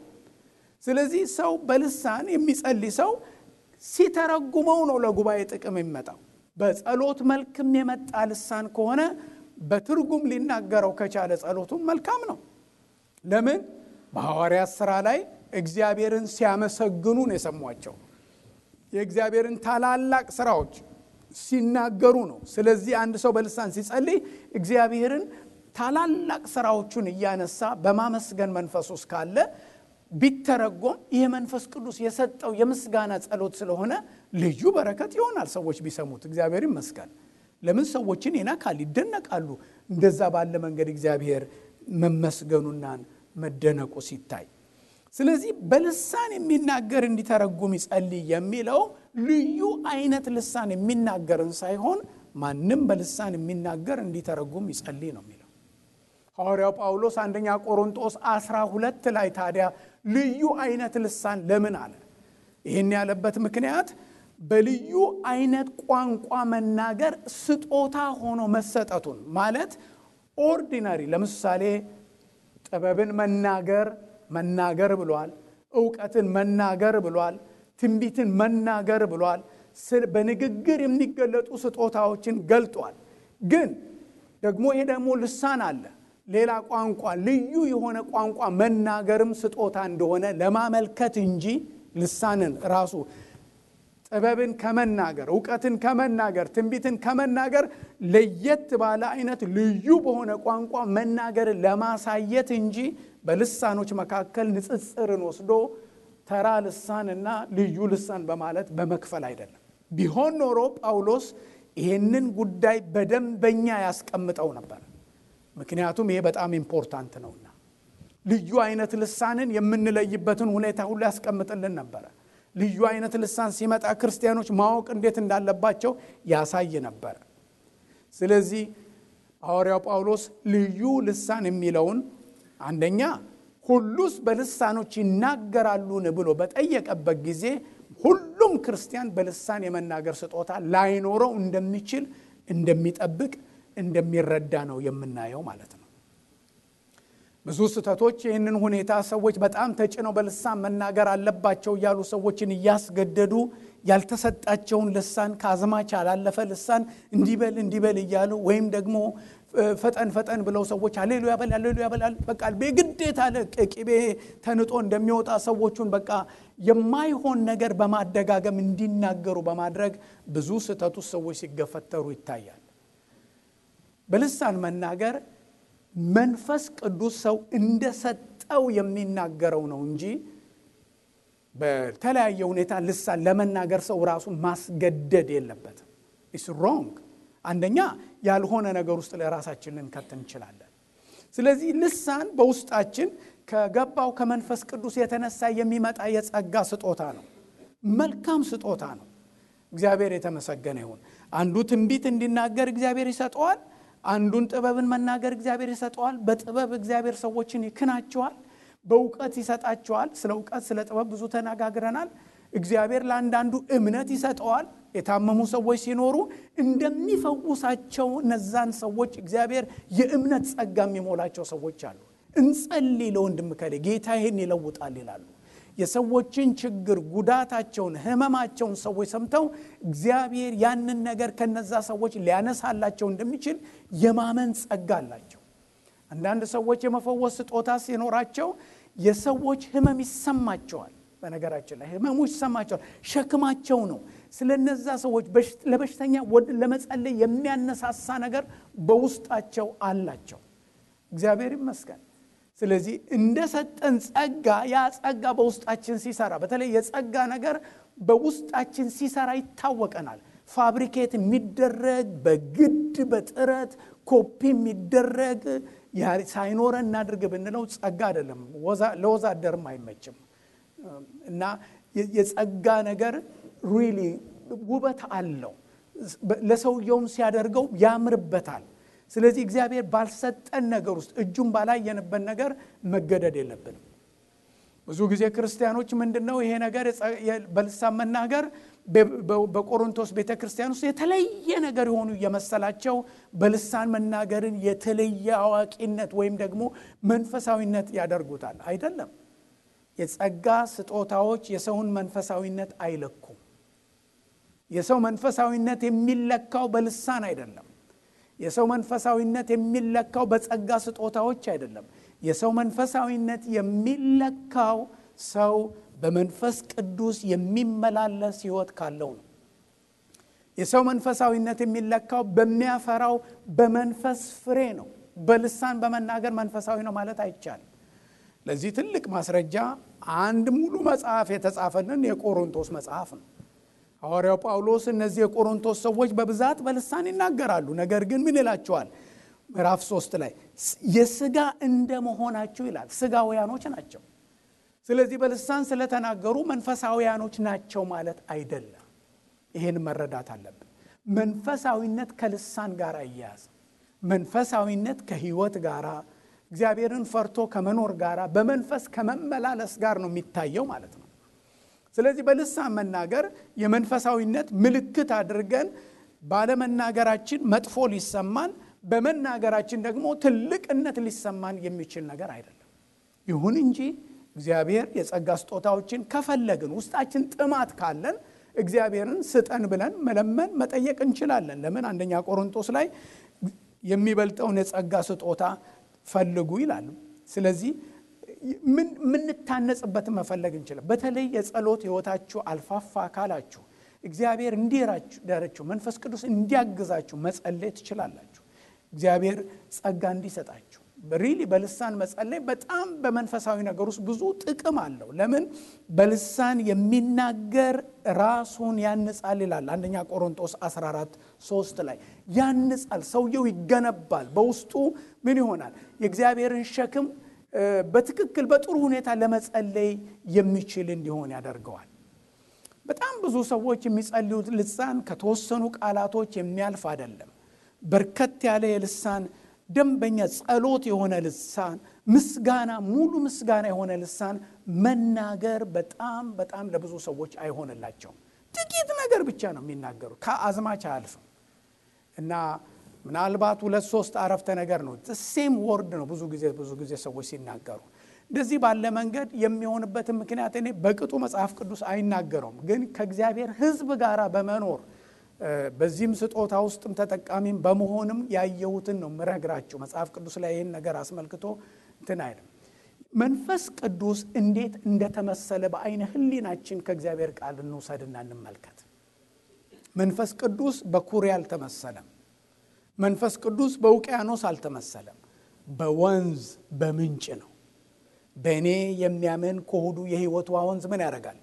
ስለዚህ ሰው በልሳን የሚጸልይ ሰው ሲተረጉመው ነው ለጉባኤ ጥቅም የሚመጣው። በጸሎት መልክም የመጣ ልሳን ከሆነ በትርጉም ሊናገረው ከቻለ ጸሎቱን መልካም ነው። ለምን? በሐዋርያት ሥራ ላይ እግዚአብሔርን ሲያመሰግኑ ነው የሰሟቸው። የእግዚአብሔርን ታላላቅ ሥራዎች ሲናገሩ ነው። ስለዚህ አንድ ሰው በልሳን ሲጸልይ እግዚአብሔርን ታላላቅ ሥራዎቹን እያነሳ በማመስገን መንፈስ ውስጥ ካለ ቢተረጎም ይሄ መንፈስ ቅዱስ የሰጠው የምስጋና ጸሎት ስለሆነ ልዩ በረከት ይሆናል። ሰዎች ቢሰሙት እግዚአብሔር ይመስገን። ለምን? ሰዎችን ይነካል፣ ይደነቃሉ። እንደዛ ባለ መንገድ እግዚአብሔር መመስገኑና መደነቁ ሲታይ፣ ስለዚህ በልሳን የሚናገር እንዲተረጉም ይጸልይ የሚለው ልዩ አይነት ልሳን የሚናገርን ሳይሆን ማንም በልሳን የሚናገር እንዲተረጉም ይጸልይ ነው የሚለው ሐዋርያው ጳውሎስ አንደኛ ቆሮንቶስ 12 ላይ። ታዲያ ልዩ አይነት ልሳን ለምን አለ? ይህን ያለበት ምክንያት በልዩ አይነት ቋንቋ መናገር ስጦታ ሆኖ መሰጠቱን ማለት ኦርዲናሪ፣ ለምሳሌ ጥበብን መናገር ብሏል፣ ዕውቀትን መናገር ብሏል፣ ትንቢትን መናገር ብሏል። በንግግር የሚገለጡ ስጦታዎችን ገልጧል። ግን ደግሞ ይሄ ደግሞ ልሳን አለ፣ ሌላ ቋንቋ፣ ልዩ የሆነ ቋንቋ መናገርም ስጦታ እንደሆነ ለማመልከት እንጂ ልሳንን ራሱ ጥበብን ከመናገር፣ ዕውቀትን ከመናገር፣ ትንቢትን ከመናገር ለየት ባለ አይነት ልዩ በሆነ ቋንቋ መናገርን ለማሳየት እንጂ በልሳኖች መካከል ንጽጽርን ወስዶ ተራ ልሳንና ልዩ ልሳን በማለት በመክፈል አይደለም። ቢሆን ኖሮ ጳውሎስ ይህንን ጉዳይ በደንበኛ ያስቀምጠው ነበር። ምክንያቱም ይሄ በጣም ኢምፖርታንት ነውና ልዩ አይነት ልሳንን የምንለይበትን ሁኔታ ሁሉ ያስቀምጥልን ነበር። ልዩ አይነት ልሳን ሲመጣ ክርስቲያኖች ማወቅ እንዴት እንዳለባቸው ያሳይ ነበር። ስለዚህ ሐዋርያው ጳውሎስ ልዩ ልሳን የሚለውን አንደኛ ሁሉስ በልሳኖች ይናገራሉን ብሎ በጠየቀበት ጊዜ ሁሉም ክርስቲያን በልሳን የመናገር ስጦታ ላይኖረው እንደሚችል እንደሚጠብቅ እንደሚረዳ ነው የምናየው ማለት ነው። ብዙ ስህተቶች ይህንን ሁኔታ ሰዎች በጣም ተጭነው በልሳን መናገር አለባቸው እያሉ ሰዎችን እያስገደዱ ያልተሰጣቸውን ልሳን ከአዝማች ያላለፈ ልሳን እንዲበል እያሉ ወይም ደግሞ ፈጠን ብለው ሰዎች ሃሌሉያ በል በቃ በግዴታ ለቅቤ ተንጦ እንደሚወጣ ሰዎቹን በቃ የማይሆን ነገር በማደጋገም እንዲናገሩ በማድረግ ብዙ ስህተቱ ሰዎች ሲገፈተሩ ይታያል። በልሳን መናገር መንፈስ ቅዱስ ሰው እንደሰጠው የሚናገረው ነው እንጂ በተለያየ ሁኔታ ልሳን ለመናገር ሰው ራሱ ማስገደድ የለበትም። ኢትስ ሮንግ። አንደኛ ያልሆነ ነገር ውስጥ ለራሳችን ልንከት እንችላለን። ስለዚህ ልሳን በውስጣችን ከገባው ከመንፈስ ቅዱስ የተነሳ የሚመጣ የጸጋ ስጦታ ነው። መልካም ስጦታ ነው። እግዚአብሔር የተመሰገነ ይሁን። አንዱ ትንቢት እንዲናገር እግዚአብሔር ይሰጠዋል። አንዱን ጥበብን መናገር እግዚአብሔር ይሰጠዋል። በጥበብ እግዚአብሔር ሰዎችን ይክናቸዋል። በእውቀት ይሰጣቸዋል። ስለ እውቀት ስለ ጥበብ ብዙ ተነጋግረናል። እግዚአብሔር ለአንዳንዱ እምነት ይሰጠዋል። የታመሙ ሰዎች ሲኖሩ እንደሚፈውሳቸው እነዛን ሰዎች እግዚአብሔር የእምነት ጸጋ የሚሞላቸው ሰዎች አሉ። እንጸልይ ለወንድም ከሌ ጌታ ይሄን ይለውጣል ይላሉ። የሰዎችን ችግር ጉዳታቸውን ህመማቸውን ሰዎች ሰምተው እግዚአብሔር ያንን ነገር ከነዛ ሰዎች ሊያነሳላቸው እንደሚችል የማመን ጸጋ አላቸው። አንዳንድ ሰዎች የመፈወስ ስጦታ ሲኖራቸው የሰዎች ህመም ይሰማቸዋል። በነገራችን ላይ ህመሙ ይሰማቸዋል። ሸክማቸው ነው። ስለነዛ ሰዎች ለበሽተኛ ለመጸለይ የሚያነሳሳ ነገር በውስጣቸው አላቸው። እግዚአብሔር ይመስገን። ስለዚህ እንደሰጠን ጸጋ ያ ጸጋ በውስጣችን ሲሰራ በተለይ የጸጋ ነገር በውስጣችን ሲሰራ ይታወቀናል። ፋብሪኬት የሚደረግ በግድ በጥረት ኮፒ የሚደረግ ሳይኖረን እናድርግ ብንለው ጸጋ አይደለም። ለወዛደርም አይመችም። እና የጸጋ ነገር ሪሊ ውበት አለው። ለሰውየውም ሲያደርገው ያምርበታል። ስለዚህ እግዚአብሔር ባልሰጠን ነገር ውስጥ እጁን ባላየንበት ነገር መገደድ የለብንም። ብዙ ጊዜ ክርስቲያኖች ምንድነው ይሄ ነገር በልሳን መናገር በቆሮንቶስ ቤተክርስቲያን ውስጥ የተለየ ነገር የሆኑ የመሰላቸው በልሳን መናገርን የተለየ አዋቂነት ወይም ደግሞ መንፈሳዊነት ያደርጉታል። አይደለም። የጸጋ ስጦታዎች የሰውን መንፈሳዊነት አይለኩም። የሰው መንፈሳዊነት የሚለካው በልሳን አይደለም። የሰው መንፈሳዊነት የሚለካው በጸጋ ስጦታዎች አይደለም። የሰው መንፈሳዊነት የሚለካው ሰው በመንፈስ ቅዱስ የሚመላለስ ሕይወት ካለው ነው። የሰው መንፈሳዊነት የሚለካው በሚያፈራው በመንፈስ ፍሬ ነው። በልሳን በመናገር መንፈሳዊ ነው ማለት አይቻልም። ለዚህ ትልቅ ማስረጃ አንድ ሙሉ መጽሐፍ የተጻፈልን የቆሮንቶስ መጽሐፍ ነው። ሐዋርያው ጳውሎስ እነዚህ የቆሮንቶስ ሰዎች በብዛት በልሳን ይናገራሉ። ነገር ግን ምን ይላቸዋል? ምዕራፍ 3 ላይ የሥጋ እንደመሆናቸው ይላል። ሥጋውያኖች ናቸው። ስለዚህ በልሳን ስለተናገሩ መንፈሳውያኖች ናቸው ማለት አይደለም። ይሄን መረዳት አለብን። መንፈሳዊነት ከልሳን ጋር አያያዝ። መንፈሳዊነት ከሕይወት ጋር እግዚአብሔርን ፈርቶ ከመኖር ጋር በመንፈስ ከመመላለስ ጋር ነው የሚታየው ማለት ነው። ስለዚህ በልሳን መናገር የመንፈሳዊነት ምልክት አድርገን ባለመናገራችን መጥፎ ሊሰማን በመናገራችን ደግሞ ትልቅነት ሊሰማን የሚችል ነገር አይደለም። ይሁን እንጂ እግዚአብሔር የጸጋ ስጦታዎችን ከፈለግን ውስጣችን ጥማት ካለን እግዚአብሔርን ስጠን ብለን መለመን መጠየቅ እንችላለን። ለምን አንደኛ ቆሮንቶስ ላይ የሚበልጠውን የጸጋ ስጦታ ፈልጉ ይላል። ስለዚህ ምን ታነጽበትን መፈለግ እንችላለን። በተለይ የጸሎት ሕይወታችሁ አልፋፋ ካላችሁ እግዚአብሔር እንዲራችሁ መንፈስ ቅዱስ እንዲያግዛችሁ መጸለይ ትችላላችሁ። እግዚአብሔር ጸጋ እንዲሰጣችሁ ሪሊ በልሳን መጸለይ በጣም በመንፈሳዊ ነገር ውስጥ ብዙ ጥቅም አለው። ለምን በልሳን የሚናገር ራሱን ያንጻል ይላል አንደኛ ቆሮንቶስ 14:3 ላይ ያንጻል። ሰውየው ይገነባል። በውስጡ ምን ይሆናል? የእግዚአብሔርን ሸክም በትክክል በጥሩ ሁኔታ ለመጸለይ የሚችል እንዲሆን ያደርገዋል። በጣም ብዙ ሰዎች የሚጸልዩት ልሳን ከተወሰኑ ቃላቶች የሚያልፍ አይደለም። በርከት ያለ የልሳን ደንበኛ ጸሎት የሆነ ልሳን ምስጋና ሙሉ ምስጋና የሆነ ልሳን መናገር በጣም በጣም ለብዙ ሰዎች አይሆንላቸውም። ጥቂት ነገር ብቻ ነው የሚናገሩ ከአዝማች አያልፍም እና ምናልባት 2-3 አረፍተ ነገር ነው ሴም ወርድ ነው ብዙ ጊዜ ሰዎች ሲናገሩ እንደዚህ ባለ መንገድ የሚሆንበትን ምክንያት እኔ በቅጡ መጽሐፍ ቅዱስ አይናገረውም። ግን ከእግዚአብሔር ሕዝብ ጋር በመኖር በዚህም ስጦታ ውስጥም ተጠቃሚም በመሆንም ያየሁትን ነው ምረግራችሁ። መጽሐፍ ቅዱስ ላይ ይህን ነገር አስመልክቶ እንትን አይደለም። መንፈስ ቅዱስ እንዴት እንደተመሰለ በአይነ ህሊናችን ከእግዚአብሔር ቃል እንውሰድና እንመልከት። መንፈስ ቅዱስ በኩሬ አልተመሰለም። መንፈስ ቅዱስ በውቅያኖስ አልተመሰለም። በወንዝ በምንጭ ነው። በእኔ የሚያምን ከሆዱ የሕይወት ወንዝ ምን ያደርጋል?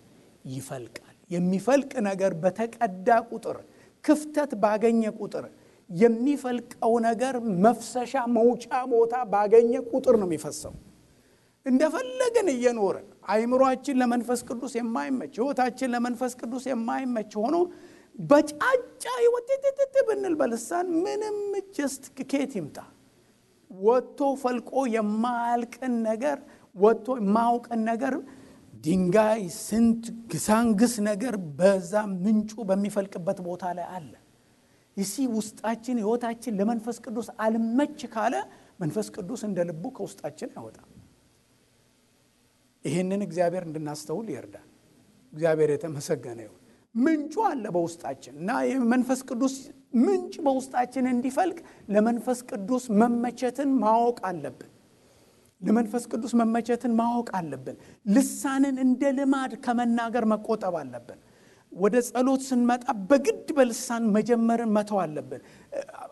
ይፈልቃል። የሚፈልቅ ነገር በተቀዳ ቁጥር ክፍተት ባገኘ ቁጥር የሚፈልቀው ነገር መፍሰሻ መውጫ ቦታ ባገኘ ቁጥር ነው የሚፈሰው። እንደፈለገን እየኖርን አይምሮአችን ለመንፈስ ቅዱስ የማይመች ሕይወታችን ለመንፈስ ቅዱስ የማይመች ሆኖ በጫጫ ይወጥጥጥ ብንል በልሳን ምንም ጀስት ከየት ይምጣ? ወጥቶ ፈልቆ የማያልቅን ነገር ወጥቶ የማያውቅን ነገር ድንጋይ ስንት ግሳንግስ ነገር በዛ ምንጩ በሚፈልቅበት ቦታ ላይ አለ። ይሲ ውስጣችን ሕይወታችን ለመንፈስ ቅዱስ አልመች ካለ መንፈስ ቅዱስ እንደ ልቡ ከውስጣችን አይወጣም። ይህንን እግዚአብሔር እንድናስተውል ይርዳል። እግዚአብሔር የተመሰገነ ይሁን። ምንጩ አለ በውስጣችን እና የመንፈስ ቅዱስ ምንጭ በውስጣችን እንዲፈልቅ ለመንፈስ ቅዱስ መመቸትን ማወቅ አለብን። ለመንፈስ ቅዱስ መመቸትን ማወቅ አለብን። ልሳንን እንደ ልማድ ከመናገር መቆጠብ አለብን። ወደ ጸሎት ስንመጣ በግድ በልሳን መጀመርን መተው አለብን።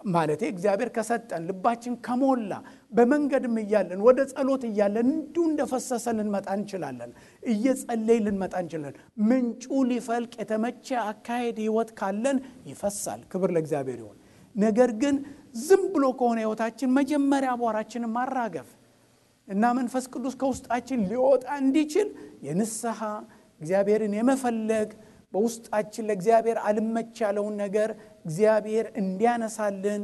ማለቴ እግዚአብሔር ከሰጠን ልባችን ከሞላ በመንገድም እያለን ወደ ጸሎት እያለን እንዲሁ እንደፈሰሰ ልንመጣ እንችላለን። እየጸለይ ልንመጣ እንችላለን። ምንጩ ሊፈልቅ የተመቸ አካሄድ ሕይወት ካለን ይፈሳል። ክብር ለእግዚአብሔር ይሁን። ነገር ግን ዝም ብሎ ከሆነ ሕይወታችን መጀመሪያ አቧራችንን ማራገፍ እና መንፈስ ቅዱስ ከውስጣችን ሊወጣ እንዲችል የንስሐ እግዚአብሔርን የመፈለግ በውስጣችን ለእግዚአብሔር አልመች ያለውን ነገር እግዚአብሔር እንዲያነሳልን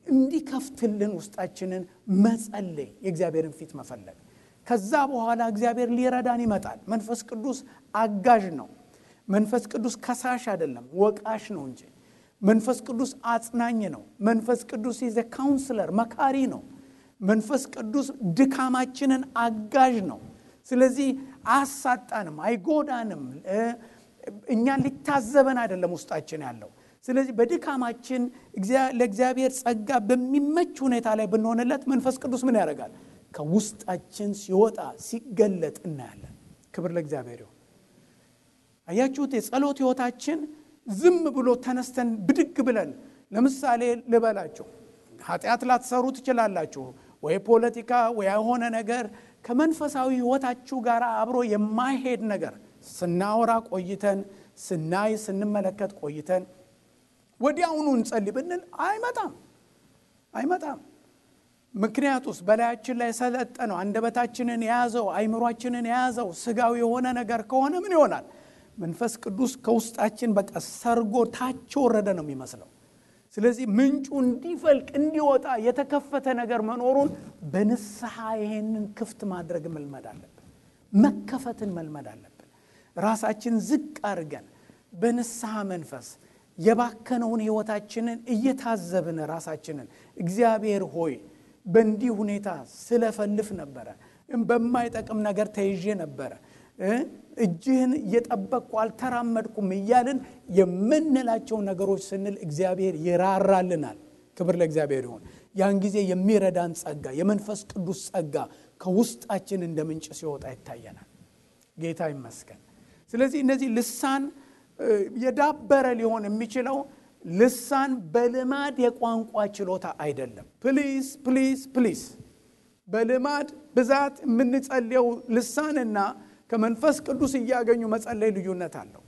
እንዲከፍትልን ውስጣችንን መጸለይ የእግዚአብሔርን ፊት መፈለግ። ከዛ በኋላ እግዚአብሔር ሊረዳን ይመጣል። መንፈስ ቅዱስ አጋዥ ነው። መንፈስ ቅዱስ ከሳሽ አይደለም፣ ወቃሽ ነው እንጂ። መንፈስ ቅዱስ አጽናኝ ነው። መንፈስ ቅዱስ ኢዝ ኤ ካውንስለር፣ መካሪ ነው። መንፈስ ቅዱስ ድካማችንን አጋዥ ነው። ስለዚህ አያሳጣንም፣ አይጎዳንም። እኛን ሊታዘበን አይደለም ውስጣችን ያለው። ስለዚህ በድካማችን ለእግዚአብሔር ጸጋ በሚመች ሁኔታ ላይ ብንሆንለት መንፈስ ቅዱስ ምን ያደርጋል? ከውስጣችን ሲወጣ ሲገለጥ እናያለን። ክብር ለእግዚአብሔር ይሁን። አያችሁት? የጸሎት ሕይወታችን ዝም ብሎ ተነስተን ብድግ ብለን ለምሳሌ ልበላችሁ፣ ኃጢአት ላትሰሩ ትችላላችሁ ወይ ፖለቲካ ወይ የሆነ ነገር ከመንፈሳዊ ሕይወታችሁ ጋር አብሮ የማይሄድ ነገር ስናወራ ቆይተን ስናይ ስንመለከት ቆይተን ወዲያውኑ እንጸልይ ብንል አይመጣም። ምክንያቱስ በላያችን ላይ ሰለጠነው አንደበታችንን የያዘው አይምሮአችንን የያዘው ስጋዊ የሆነ ነገር ከሆነ ምን ይሆናል? መንፈስ ቅዱስ ከውስጣችን በቃ ሰርጎ ታች ወረደ ነው የሚመስለው። ስለዚህ ምንጩ እንዲፈልቅ እንዲወጣ የተከፈተ ነገር መኖሩን በንስሐ ይሄንን ክፍት ማድረግ መልመድ አለብን። መከፈትን መልመድ አለብን። ራሳችን ዝቅ አድርገን በንስሐ መንፈስ የባከነውን ሕይወታችንን እየታዘብን ራሳችንን እግዚአብሔር ሆይ በእንዲህ ሁኔታ ስለፈልፍ ነበረ፣ በማይጠቅም ነገር ተይዤ ነበረ፣ እጅህን እየጠበቅኩ አልተራመድኩም እያልን የምንላቸው ነገሮች ስንል እግዚአብሔር ይራራልናል። ክብር ለእግዚአብሔር ይሁን። ያን ጊዜ የሚረዳን ጸጋ የመንፈስ ቅዱስ ጸጋ ከውስጣችን እንደ ምንጭ ሲወጣ ይታየናል። ጌታ ይመስገን። ስለዚህ እነዚህ ልሳን የዳበረ ሊሆን የሚችለው ልሳን በልማድ የቋንቋ ችሎታ አይደለም። ፕሊዝ በልማድ ብዛት የምንጸልየው ልሳንና ከመንፈስ ቅዱስ እያገኙ መጸለይ ልዩነት አለው።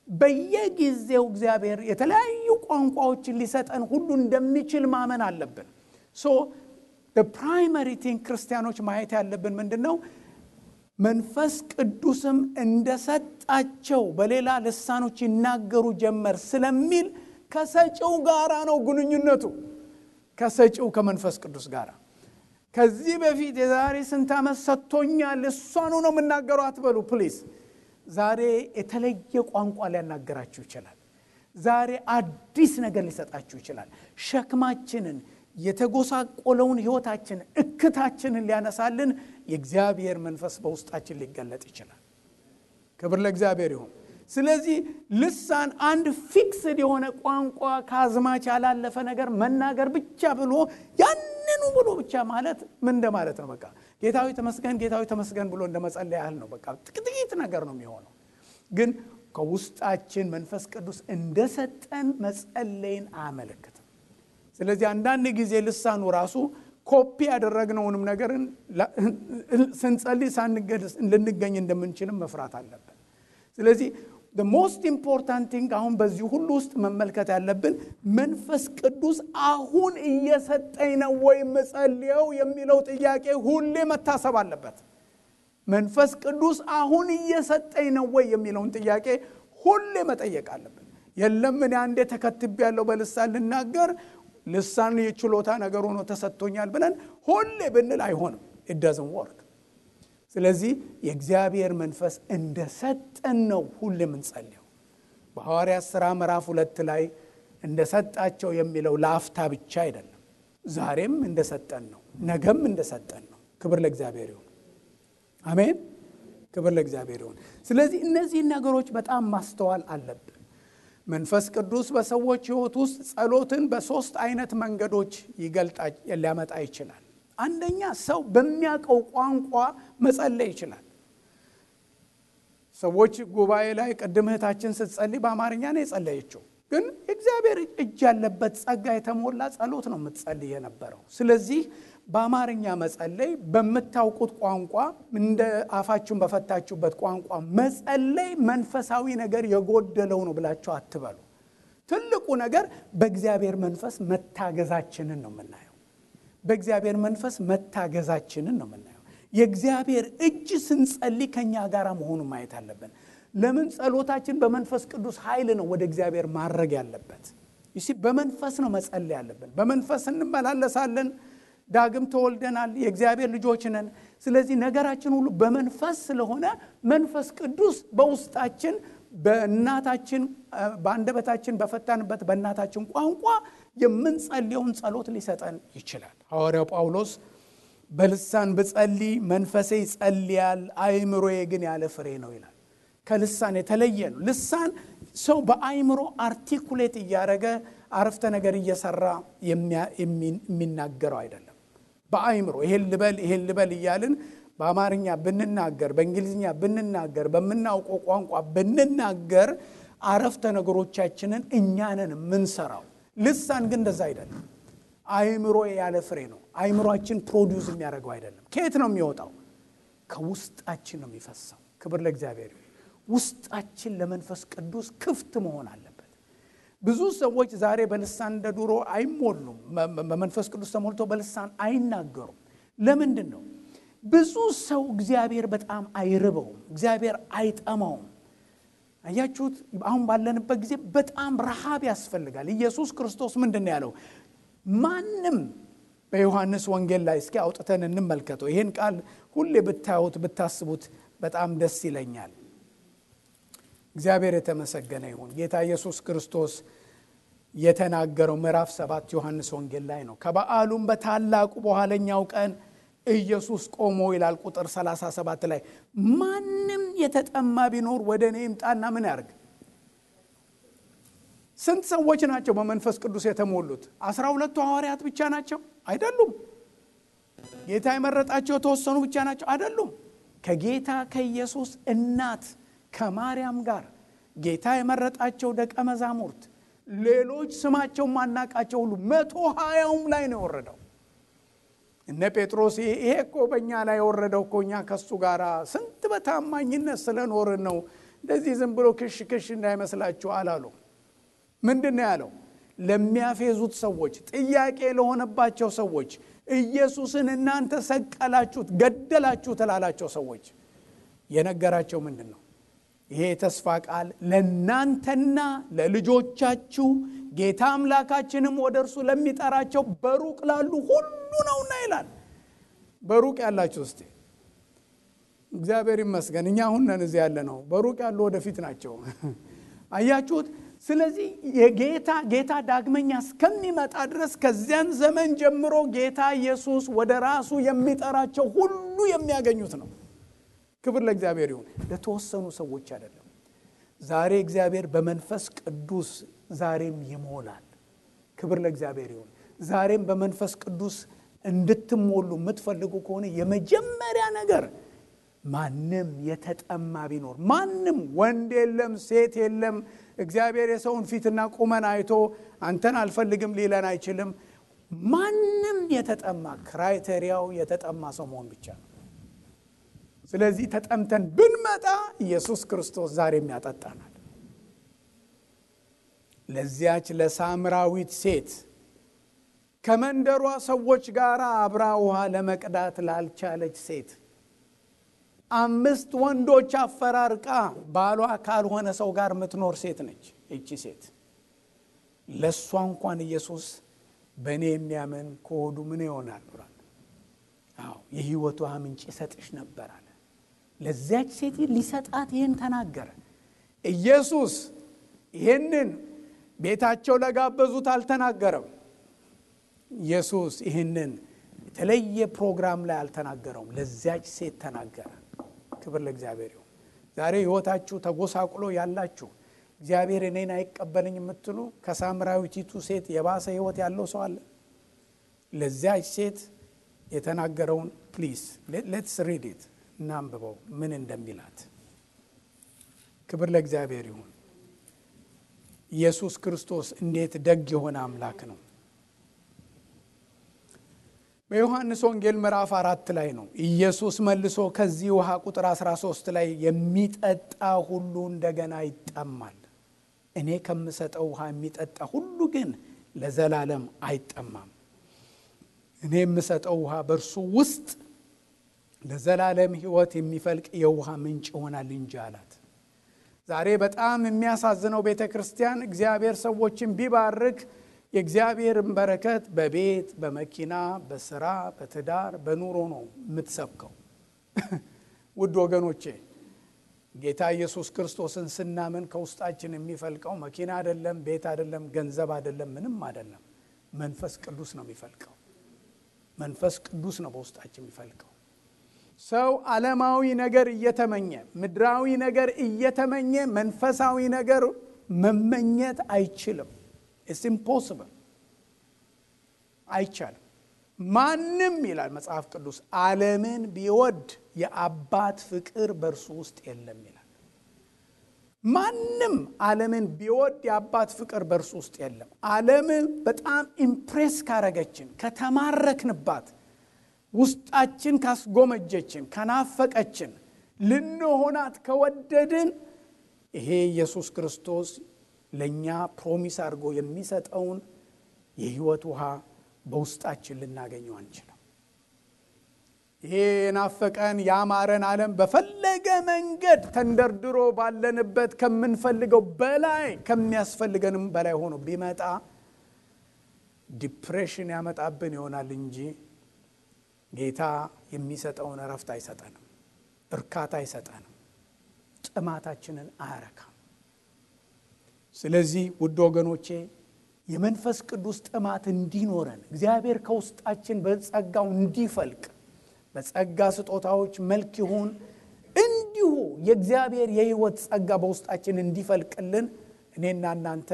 በየጊዜው እግዚአብሔር የተለያዩ ቋንቋዎችን ሊሰጠን ሁሉ እንደሚችል ማመን አለብን። the primary thing ክርስቲያኖች ማየት ያለብን ምንድነው? መንፈስ ቅዱስም እንደሰጣቸው በሌላ ልሳኖች ይናገሩ ጀመር ስለሚል ከሰጪው ጋራ ነው ግንኙነቱ። ከሰጪው ከመንፈስ ቅዱስ ጋራ ከዚህ በፊት የዛሬ ስንት ዓመት ሰጥቶኛል እሷኑ ነው የምናገረው አትበሉ ፕሊዝ። ዛሬ የተለየ ቋንቋ ሊያናገራችሁ ይችላል። ዛሬ አዲስ ነገር ሊሰጣችሁ ይችላል። ሸክማችንን፣ የተጎሳቆለውን ሕይወታችንን፣ እክታችንን ሊያነሳልን የእግዚአብሔር መንፈስ በውስጣችን ሊገለጥ ይችላል። ክብር ለእግዚአብሔር ይሁን። ስለዚህ ልሳን አንድ ፊክስድ የሆነ ቋንቋ ከአዝማች ያላለፈ ነገር መናገር ብቻ ብሎ ያንኑ ብሎ ብቻ ማለት ምን እንደማለት ነው? በቃ ጌታዊ ተመስገን ጌታዊ ተመስገን ብሎ እንደመጸለይ ያህል ነው። በቃ ጥቂት ነገር ነው የሚሆነው። ግን ከውስጣችን መንፈስ ቅዱስ እንደሰጠን መጸለይን አያመለክትም። ስለዚህ አንዳንድ ጊዜ ልሳኑ ራሱ ኮፒ ያደረግነውንም ነገርን ስንጸልይ ልንገኝ እንደምንችልም መፍራት አለብን። ስለዚህ the most important thing አሁን በዚህ ሁሉ ውስጥ መመልከት ያለብን መንፈስ ቅዱስ አሁን እየሰጠኝ ነው ወይ መጸልየው የሚለው ጥያቄ ሁሌ መታሰብ አለበት። መንፈስ ቅዱስ አሁን እየሰጠኝ ነው ወይ የሚለውን ጥያቄ ሁሌ መጠየቅ አለብን። የለም እኔ አንዴ ተከትቤያለሁ በልሳን ልናገር ልሳን የችሎታ ነገር ሆኖ ተሰጥቶኛል ብለን ሁሌ ብንል አይሆንም። it doesn't work። ስለዚህ የእግዚአብሔር መንፈስ እንደሰጠን ነው ሁሌ የምንጸልየው። በሐዋርያት ሥራ ምዕራፍ 2 ላይ እንደሰጣቸው የሚለው ለአፍታ ብቻ አይደለም። ዛሬም እንደሰጠን ነው፣ ነገም እንደሰጠን ነው። ክብር ለእግዚአብሔር ይሁን። አሜን። ክብር ለእግዚአብሔር ይሁን። ስለዚህ እነዚህ ነገሮች በጣም ማስተዋል አለብን። መንፈስ ቅዱስ በሰዎች ሕይወት ውስጥ ጸሎትን በሶስት አይነት መንገዶች ሊያመጣ ይችላል። አንደኛ ሰው በሚያውቀው ቋንቋ መጸለይ ይችላል። ሰዎች ጉባኤ ላይ ቅድም እህታችን ስትጸልይ በአማርኛ ነው የጸለየችው፣ ግን እግዚአብሔር እጅ ያለበት ጸጋ የተሞላ ጸሎት ነው የምትጸልይ የነበረው። ስለዚህ በአማርኛ መጸለይ፣ በምታውቁት ቋንቋ እንደ አፋችሁን በፈታችሁበት ቋንቋ መጸለይ መንፈሳዊ ነገር የጎደለው ነው ብላችሁ አትበሉ። ትልቁ ነገር በእግዚአብሔር መንፈስ መታገዛችንን ነው የምናየው። በእግዚአብሔር መንፈስ መታገዛችንን ነው የምናየው። የእግዚአብሔር እጅ ስንጸልይ ከኛ ጋር መሆኑን ማየት አለብን። ለምን? ጸሎታችን በመንፈስ ቅዱስ ኃይል ነው ወደ እግዚአብሔር ማድረግ ያለበት። በመንፈስ ነው መጸለይ ያለብን። በመንፈስ እንመላለሳለን። ዳግም ተወልደናል። የእግዚአብሔር ልጆች ነን። ስለዚህ ነገራችን ሁሉ በመንፈስ ስለሆነ መንፈስ ቅዱስ በውስጣችን በእናታችን በአንደበታችን በፈታንበት በእናታችን ቋንቋ የምንጸልየውን ጸሎት ሊሰጠን ይችላል። ሐዋርያው ጳውሎስ በልሳን ብጸልይ መንፈሴ ይጸልያል፣ አይምሮዬ ግን ያለ ፍሬ ነው ይላል። ከልሳን የተለየ ነው። ልሳን ሰው በአይምሮ አርቲኩሌት እያደረገ አረፍተ ነገር እየሰራ የሚናገረው አይደለም። በአይምሮ ይሄን ልበል እያልን በአማርኛ ብንናገር፣ በእንግሊዝኛ ብንናገር፣ በምናውቀው ቋንቋ ብንናገር አረፍተ ነገሮቻችንን እኛንን የምንሰራው። ልሳን ግን እንደዛ አይደለም። አይምሮ ያለ ፍሬ ነው። አይምሮአችን ፕሮዲዩስ የሚያደርገው አይደለም። ከየት ነው የሚወጣው? ከውስጣችን ነው የሚፈሰው። ክብር ለእግዚአብሔር። ውስጣችን ለመንፈስ ቅዱስ ክፍት መሆን አለበት። ብዙ ሰዎች ዛሬ በልሳን እንደ ድሮ አይሞሉም። በመንፈስ ቅዱስ ተሞልተው በልሳን አይናገሩም። ለምንድን ነው? ብዙ ሰው እግዚአብሔር በጣም አይርበውም፣ እግዚአብሔር አይጠማውም። አያችሁት? አሁን ባለንበት ጊዜ በጣም ረሃብ ያስፈልጋል። ኢየሱስ ክርስቶስ ምንድን ነው ያለው? ማንም በዮሐንስ ወንጌል ላይ እስኪ አውጥተን እንመልከተው። ይሄን ቃል ሁሌ ብታዩት ብታስቡት በጣም ደስ ይለኛል። እግዚአብሔር የተመሰገነ ይሁን። ጌታ ኢየሱስ ክርስቶስ የተናገረው ምዕራፍ 7 ዮሐንስ ወንጌል ላይ ነው። ከበዓሉም በታላቁ በኋለኛው ቀን ኢየሱስ ቆሞ ይላል ቁጥር 37 ላይ ማንም የተጠማ ቢኖር ወደ እኔ ይምጣና ምን ያርግ? ስንት ሰዎች ናቸው በመንፈስ ቅዱስ የተሞሉት? 12ቱ ሐዋርያት ብቻ ናቸው? አይደሉም። ጌታ የመረጣቸው የተወሰኑ ብቻ ናቸው? አይደሉም። ከጌታ ከኢየሱስ እናት ከማርያም ጋር ጌታ የመረጣቸው ደቀ መዛሙርት፣ ሌሎች ስማቸው ማናቃቸው ሁሉ 120ም ላይ ነው የወረደው። እነ ጴጥሮስ ይሄ እኮ በእኛ ላይ የወረደው እኮ እኛ ከሱ ጋር ስንት በታማኝነት ስለኖርን ነው፣ እንደዚህ ዝም ብሎ ክሽ እንዳይመስላችሁ አላሉ። ምንድን ነው ያለው? ለሚያፌዙት ሰዎች፣ ጥያቄ ለሆነባቸው ሰዎች፣ ኢየሱስን እናንተ ሰቀላችሁት፣ ገደላችሁት ላላቸው ሰዎች የነገራቸው ምንድን ነው? ይሄ የተስፋ ቃል ለእናንተና ለልጆቻችሁ ጌታ አምላካችንም ወደ እርሱ ለሚጠራቸው በሩቅ ላሉ ሁሉ ነውና ይላል። በሩቅ ያላችሁ እስቲ እግዚአብሔር ይመስገን እኛ አሁን ነን እዚህ ያለ ነው። በሩቅ ያሉ ወደፊት ናቸው። አያችሁት? ስለዚህ ጌታ ዳግመኛ እስከሚመጣ ድረስ ከዚያን ዘመን ጀምሮ ጌታ ኢየሱስ ወደ ራሱ የሚጠራቸው ሁሉ የሚያገኙት ነው። ክብር ለእግዚአብሔር ይሁን። ለተወሰኑ ሰዎች አይደለም። ዛሬ እግዚአብሔር በመንፈስ ቅዱስ ዛሬም ይሞላል። ክብር ለእግዚአብሔር ይሁን። ዛሬም በመንፈስ ቅዱስ እንድትሞሉ የምትፈልጉ ከሆነ የመጀመሪያ ነገር ማንም የተጠማ ቢኖር ማንም ወንድ የለም ሴት የለም እግዚአብሔር የሰውን ፊትና ቁመና አይቶ አንተን አልፈልግም ሊለን አይችልም። ማንም የተጠማ ክራይቴሪያው የተጠማ ሰው መሆን ብቻ ነው። ስለዚህ ተጠምተን ብንመጣ ኢየሱስ ክርስቶስ ዛሬም ያጠጣናል። ለዚያች ለሳምራዊት ሴት ከመንደሯ ሰዎች ጋር አብራ ውሃ ለመቅዳት ላልቻለች ሴት 5 ወንዶች አፈራርቃ ባሏ ካልሆነ ሰው ጋር የምትኖር ሴት ነች እቺ ሴት። ለሷ እንኳን ኢየሱስ በእኔ የሚያምን ከሆዱ ምን ይሆናል ብሏል። የሕይወት ውሃ ምንጭ ይሰጥሽ ነበር አለ። ለዚያች ሴት ሊሰጣት ይህን ተናገረ። ኢየሱስ ይህንን ቤታቸው ለጋበዙት አልተናገረም። ኢየሱስ ይህንን የተለየ ፕሮግራም ላይ አልተናገረውም። ለዚያች ሴት ተናገረ። ክብር ለእግዚአብሔር ይሁን። ዛሬ ሕይወታችሁ ተጎሳቁሎ ያላችሁ እግዚአብሔር እኔን አይቀበልኝ የምትሉ ከሳምራዊቲቱ ሴት የባሰ ሕይወት ያለው ሰው አለ? ለዚያች ሴት የተናገረውን ፕሊዝ ሌትስ ሪድ ኢት እናንብበው ምን እንደሚላት። ክብር ለእግዚአብሔር ይሁን። ኢየሱስ ክርስቶስ እንዴት ደግ የሆነ አምላክ ነው። በዮሐንስ ወንጌል ምዕራፍ 4 ላይ ነው ኢየሱስ መልሶ ከዚህ ውሃ ቁጥር 13 ላይ የሚጠጣ ሁሉ እንደገና ይጠማል፣ እኔ ከምሰጠው ውሃ የሚጠጣ ሁሉ ግን ለዘላለም አይጠማም፣ እኔ የምሰጠው ውሃ በእርሱ ውስጥ ለዘላለም ሕይወት የሚፈልቅ የውሃ ምንጭ ይሆናል እንጂ አላት። ዛሬ በጣም የሚያሳዝነው ቤተክርስቲያን እግዚአብሔር ሰዎችን ቢባርክ የእግዚአብሔርን በረከት በቤት በመኪና በስራ በትዳር በኑሮ ነው የምትሰብከው። ውድ ወገኖቼ ጌታ ኢየሱስ ክርስቶስን ስናምን ከውስጣችን የሚፈልቀው መኪና አይደለም፣ ቤት አይደለም፣ ገንዘብ አይደለም፣ ምንም አይደለም። መንፈስ ቅዱስ ነው የሚፈልቀው። መንፈስ ቅዱስ ነው በውስጣችን የሚፈልቀው። ሰው ዓለማዊ ነገር እየተመኘ ምድራዊ ነገር እየተመኘ መንፈሳዊ ነገር መመኘት አይችልም። It's impossible. አይቻልም። ማንም ይላል መጽሐፍ ቅዱስ ዓለምን ቢወድ የአባት ፍቅር በእርሱ ውስጥ የለም ይላል። ማንም ዓለምን ቢወድ የአባት ፍቅር በእርሱ ውስጥ የለም። ዓለም በጣም ኢምፕሬስ ካረገችን ከተማረክንባት ውስጣችን ካስጎመጀችን ከናፈቀችን ልንሆናት ከወደድን ይሄ ኢየሱስ ክርስቶስ ለኛ ፕሮሚስ አድርጎ የሚሰጠውን የሕይወት ውሃ በውስጣችን ልናገኘው አንችልም። ይሄ ናፈቀን ያማረን ዓለም በፈለገ መንገድ ተንደርድሮ ባለንበት ከምንፈልገው በላይ ከሚያስፈልገንም በላይ ሆኖ ቢመጣ ዲፕሬሽን ያመጣብን ይሆናል እንጂ ጌታ የሚሰጠውን እረፍት አይሰጠንም፣ እርካታ አይሰጠንም፣ ጥማታችንን አያረካም። ስለዚህ ውድ ወገኖቼ የመንፈስ ቅዱስ ጥማት እንዲኖረን እግዚአብሔር ከውስጣችን በጸጋው እንዲፈልቅ በጸጋ ስጦታዎች መልክ ይሁን እንዲሁ የእግዚአብሔር የሕይወት ጸጋ በውስጣችን እንዲፈልቅልን እኔና እናንተ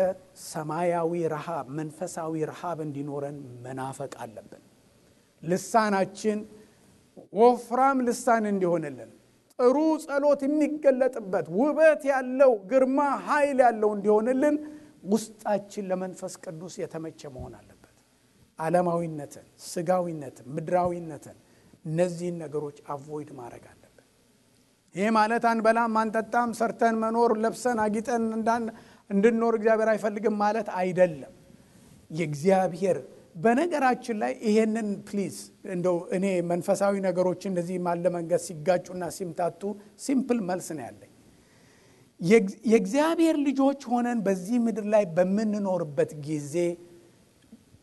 ሰማያዊ ረሃብ መንፈሳዊ ረሃብ እንዲኖረን መናፈቅ አለብን። ልሳናችን ወፍራም ልሳን እንዲሆንልን ጥሩ ጸሎት የሚገለጥበት ውበት ያለው ግርማ ኃይል ያለው እንዲሆንልን ውስጣችን ለመንፈስ ቅዱስ የተመቸ መሆን አለበት። ዓለማዊነትን፣ ስጋዊነትን፣ ምድራዊነትን እነዚህን ነገሮች አቮይድ ማድረግ አለብን። ይሄ ማለት አንበላም አንጠጣም ሰርተን መኖር ለብሰን አጊጠን እንድንኖር እግዚአብሔር አይፈልግም ማለት አይደለም። የእግዚአብሔር በነገራችን ላይ ይሄንን ፕሊዝ እንደው እኔ መንፈሳዊ ነገሮች እንደዚህ ማለ መንገድ ሲጋጩና ሲምታቱ ሲምፕል መልስ ነው ያለኝ። የእግዚአብሔር ልጆች ሆነን በዚህ ምድር ላይ በምንኖርበት ጊዜ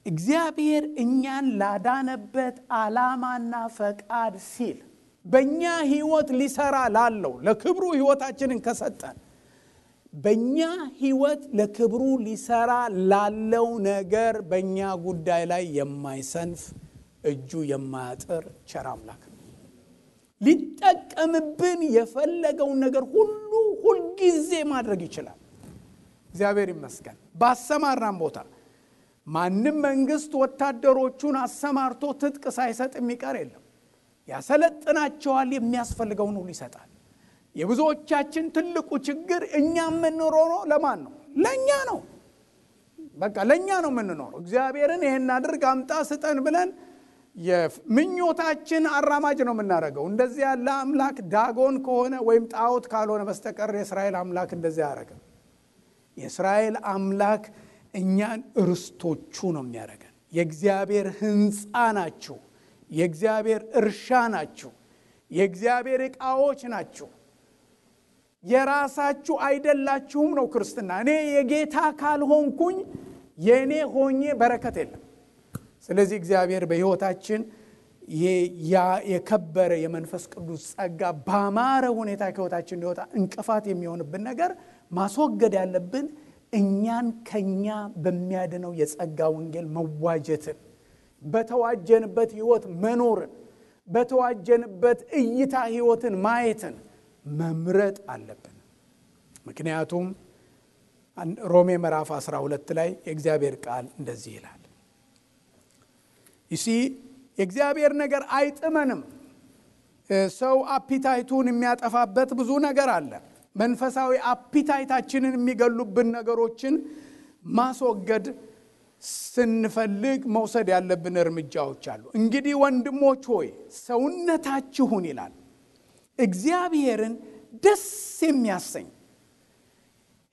እግዚአብሔር እኛን ላዳነበት ዓላማና ፈቃድ ሲል በእኛ ሕይወት ሊሰራ ላለው ለክብሩ ሕይወታችንን ከሰጠን በእኛ ሕይወት ለክብሩ ሊሰራ ላለው ነገር በእኛ ጉዳይ ላይ የማይሰንፍ እጁ የማያጥር ቸር አምላክ ነው። ሊጠቀምብን የፈለገውን ነገር ሁልጊዜ ማድረግ ይችላል። እግዚአብሔር ይመስገን። ባሰማራን ቦታ ማንም መንግስት ወታደሮቹን አሰማርቶ ትጥቅ ሳይሰጥ የሚቀር የለም። ያሰለጥናቸዋል፣ የሚያስፈልገውን ሁሉ ይሰጣል። የብዙዎቻችን ትልቁ ችግር እኛ የምንኖረው ለማን ነው? ለኛ ነው። በቃ ለኛ ነው የምንኖረው። እግዚአብሔርን ይሄን አድርግ አምጣ ስጠን ብለን የምኞታችን አራማጅ ነው የምናደርገው። እንደዚህ ያለ አምላክ ዳጎን ከሆነ ወይም ጣዖት ካልሆነ በስተቀር የእስራኤል አምላክ እንደዚህ ያደርጋል። የእስራኤል አምላክ እኛን ርስቶቹ ነው የሚያደርገን። የእግዚአብሔር ሕንፃ ናችሁ፣ የእግዚአብሔር እርሻ ናችሁ፣ የእግዚአብሔር ዕቃዎች ናችሁ። የራሳችሁ አይደላችሁም ነው ክርስትና። እኔ የጌታ ካልሆንኩኝ የኔ ሆኜ በረከት የለም። ስለዚህ እግዚአብሔር በሕይወታችን ያ የከበረ የመንፈስ ቅዱስ ጸጋ ባማረ ሁኔታ ከሕይወታችን ሊወጣ እንቅፋት የሚሆንብን ነገር ማስወገድ ያለብን እኛን ከኛ በሚያድነው የጸጋ ወንጌል መዋጀትን፣ በተዋጀንበት ሕይወት መኖርን፣ በተዋጀንበት እይታ ሕይወትን ማየትን መምረጥ አለብን። ምክንያቱም ሮሜ ምዕራፍ 12 ላይ የእግዚአብሔር ቃል እንደዚህ ይላል። ይሲ የእግዚአብሔር ነገር አይጥመንም። ሰው አፒታይቱን የሚያጠፋበት ብዙ ነገር አለ። መንፈሳዊ አፒታይታችንን የሚገሉብን ነገሮችን ማስወገድ ስንፈልግ መውሰድ ያለብን እርምጃዎች አሉ። እንግዲህ ወንድሞች ሆይ ሰውነታችሁን ይላል እግዚአብሔርን ደስ የሚያሰኝ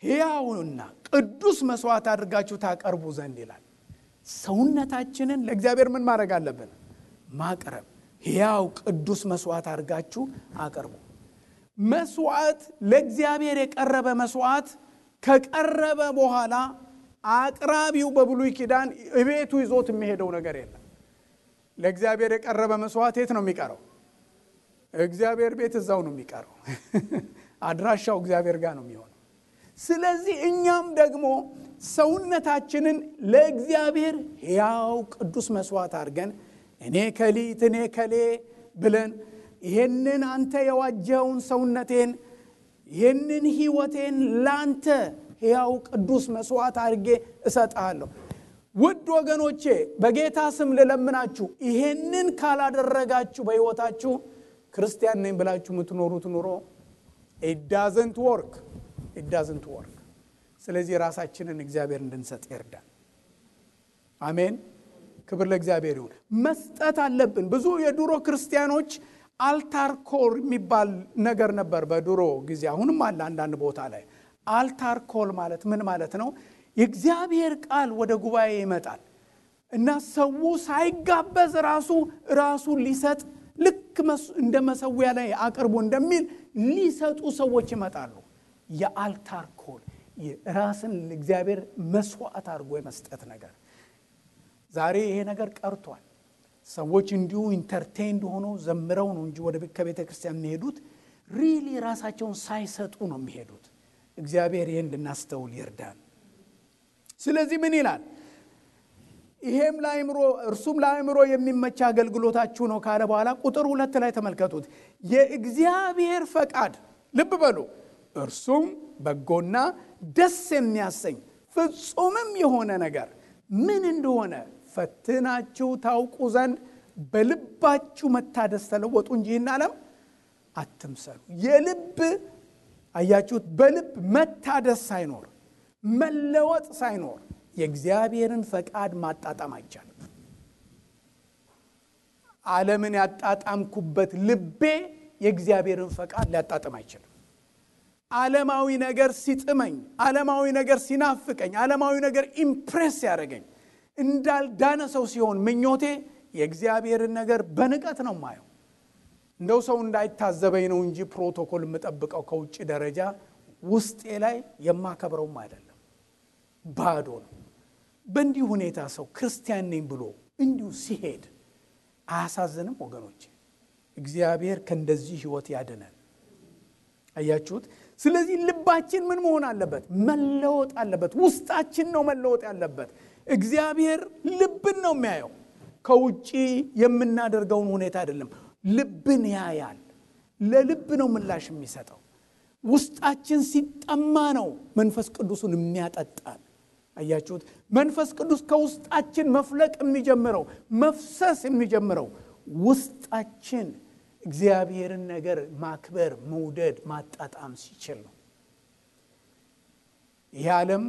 ሕያውና ቅዱስ መስዋዕት አድርጋችሁ ታቀርቡ ዘንድ ይላል። ሰውነታችንን ለእግዚአብሔር ምን ማድረግ አለብን? ማቅረብ። ሕያው ቅዱስ መስዋዕት አድርጋችሁ አቅርቡ። መስዋዕት ለእግዚአብሔር የቀረበ መስዋዕት ከቀረበ በኋላ አቅራቢው በብሉይ ኪዳን እቤቱ ይዞት የሚሄደው ነገር የለም። ለእግዚአብሔር የቀረበ መስዋዕት የት ነው የሚቀረው? እግዚአብሔር ቤት እዛው ነው የሚቀረው። አድራሻው እግዚአብሔር ጋር ነው የሚሆነው። ስለዚህ እኛም ደግሞ ሰውነታችንን ለእግዚአብሔር ሕያው ቅዱስ መስዋዕት አድርገን እኔ ከሌ ብለን ይሄንን አንተ የዋጀውን ሰውነቴን ይሄንን ሕይወቴን ላንተ ሕያው ቅዱስ መስዋዕት አድርጌ እሰጣለሁ። ውድ ወገኖቼ በጌታ ስም ልለምናችሁ፣ ይሄንን ካላደረጋችሁ በሕይወታችሁ ክርስቲያን ነኝ ብላችሁ የምትኖሩት ኑሮ it doesn't work. ስለዚህ ራሳችንን እግዚአብሔር እንድንሰጥ ይርዳል። አሜን። ክብር ለእግዚአብሔር ይሁን። መስጠት አለብን። ብዙ የድሮ ክርስቲያኖች አልታር ኮል የሚባል ነገር ነበር በድሮ ጊዜ፣ አሁንም አለ አንዳንድ ቦታ ላይ። አልታር ኮል ማለት ምን ማለት ነው? የእግዚአብሔር ቃል ወደ ጉባኤ ይመጣል እና ሰው ሳይጋበዝ ራሱ ሊሰጥ ልክ እንደ መሰዊያ ላይ አቅርቦ እንደሚል ሊሰጡ ሰዎች ይመጣሉ። የአልታር ኮል ራስን ለእግዚአብሔር መስዋዕት አድርጎ የመስጠት ነገር ዛሬ ይሄ ነገር ቀርቷል። ሰዎች እንዲሁ ኢንተርቴይንድ ሆኖ ዘምረው ነው እንጂ ወደ ከቤተ ክርስቲያን የሚሄዱት ሪሊ ራሳቸውን ሳይሰጡ ነው የሚሄዱት። እግዚአብሔር ይሄን እንድናስተውል ይርዳን። ስለዚህ ምን ይላል? ይሄም እርሱም ለአእምሮ የሚመች አገልግሎታችሁ ነው ካለ በኋላ ቁጥር 2 ላይ ተመልከቱት። የእግዚአብሔር ፈቃድ ልብ በሉ፣ እርሱም በጎና ደስ የሚያሰኝ ፍጹምም የሆነ ነገር ምን እንደሆነ ፈትናችሁ ታውቁ ዘንድ በልባችሁ መታደስ ተለወጡ እንጂ ይህን ዓለም አትምሰሉ። የልብ አያችሁት፣ በልብ መታደስ ሳይኖር መለወጥ ሳይኖር የእግዚአብሔርን ፈቃድ ማጣጣም አይቻልም። ዓለምን ያጣጣምኩበት ልቤ የእግዚአብሔርን ፈቃድ ሊያጣጣም አይችልም። ዓለማዊ ነገር ሲጥመኝ፣ ዓለማዊ ነገር ሲናፍቀኝ፣ ዓለማዊ ነገር ኢምፕሬስ ያደርገኝ እንዳልዳነ ሰው ሲሆን ምኞቴ የእግዚአብሔርን ነገር በንቀት ነው ማየው። እንደው ሰው እንዳይታዘበኝ ነው እንጂ ፕሮቶኮል የምጠብቀው ከውጭ ደረጃ ውስጤ ላይ የማከብረውም አይደለም። ባዶ ነው። በእንዲህ ሁኔታ ሰው ክርስቲያን ነኝ ብሎ እንዲሁ ሲሄድ አያሳዝንም ወገኖች? እግዚአብሔር ከእንደዚህ ህይወት ያድነን። አያችሁት? ስለዚህ ልባችን ምን መሆን አለበት? መለወጥ አለበት። ውስጣችን ነው መለወጥ ያለበት። እግዚአብሔር ልብን ነው የሚያየው፣ ከውጪ የምናደርገውን ሁኔታ አይደለም። ልብን ያያል። ለልብ ነው ምላሽ የሚሰጠው። ውስጣችን ሲጠማ ነው መንፈስ ቅዱስን የሚያጠጣን። አያችሁት? መንፈስ ቅዱስ ከውስጣችን መፍለቅ የሚጀምረው መፍሰስ የሚጀምረው ውስጣችን እግዚአብሔርን ነገር ማክበር፣ መውደድ፣ ማጣጣም ሲችል ነው። ይህ ዓለም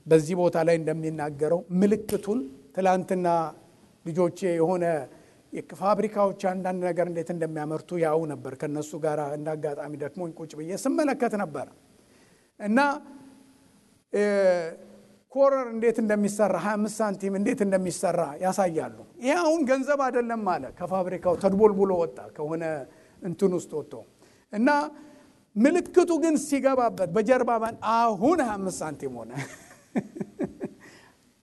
በዚህ ቦታ ላይ እንደሚናገረው ምልክቱን ትላንትና ልጆቼ የሆነ የፋብሪካዎች አንዳንድ ነገር እንዴት እንደሚያመርቱ ያው ነበር። ከነሱ ጋር እንዳጋጣሚ ደክሞኝ ቁጭ ብዬ ስመለከት ነበር እና ኮረር እንዴት እንደሚሰራ 25 ሳንቲም እንዴት እንደሚሰራ ያሳያሉ። ይሄ አሁን ገንዘብ አይደለም ማለት ከፋብሪካው ተድቦልቡሎ ወጣ ከሆነ እንትን ውስጥ ወጥቶ እና ምልክቱ ግን ሲገባበት በጀርባ አሁን 25 ሳንቲም ሆነ።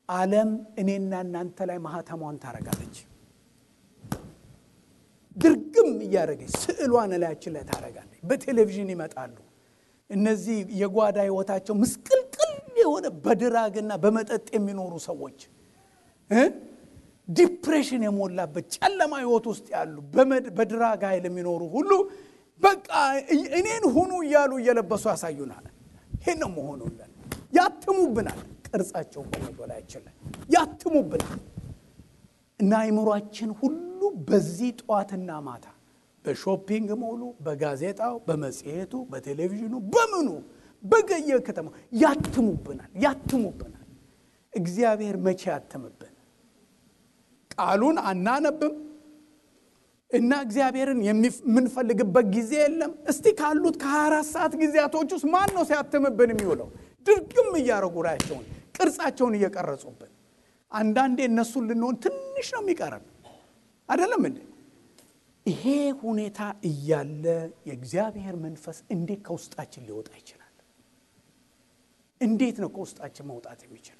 ዓለም እኔና እናንተ ላይ ማህተሟን ታረጋለች። ድርግም እያደረገች ስዕሏን ላያችን ላይ ታረጋለች። በቴሌቪዥን ይመጣሉ እነዚህ የጓዳ ህይወታቸው ምስቅልቅል የሆነ በድራግና በመጠጥ የሚኖሩ ሰዎች፣ ዲፕሬሽን የሞላበት ጨለማ ህይወት ውስጥ ያሉ በድራግ ኃይል የሚኖሩ ሁሉ በቃ እኔን ሁኑ እያሉ እየለበሱ ያሳዩናል። ይሄን ነው መሆኑልን። ያትሙብናል። ቅርጻቸውን በመዶላያችን ላይ ያትሙብናል እና አይምሯችን ሁሉ በዚህ ጧትና ማታ በሾፒንግ ሞሉ፣ በጋዜጣው፣ በመጽሔቱ፣ በቴሌቪዥኑ፣ በምኑ በገየ ከተማ ያትሙብናል። እግዚአብሔር መቼ ያትምብን? ቃሉን አናነብም እና እግዚአብሔርን የምንፈልግበት ጊዜ የለም። እስቲ ካሉት ከ24 ሰዓት ጊዜያቶች ውስጥ ማን ነው ሲያትምብን የሚውለው? ድርግም እያረጉ ራያቸውን ቅርጻቸውን እየቀረጹብን። አንዳንዴ እነሱን ልንሆን ትንሽ ነው የሚቀረን አይደለም እንዴ? ይሄ ሁኔታ እያለ የእግዚአብሔር መንፈስ እንዴት ከውስጣችን ሊወጣ ይችላል? እንዴት ነው ከውስጣችን መውጣት የሚችለው?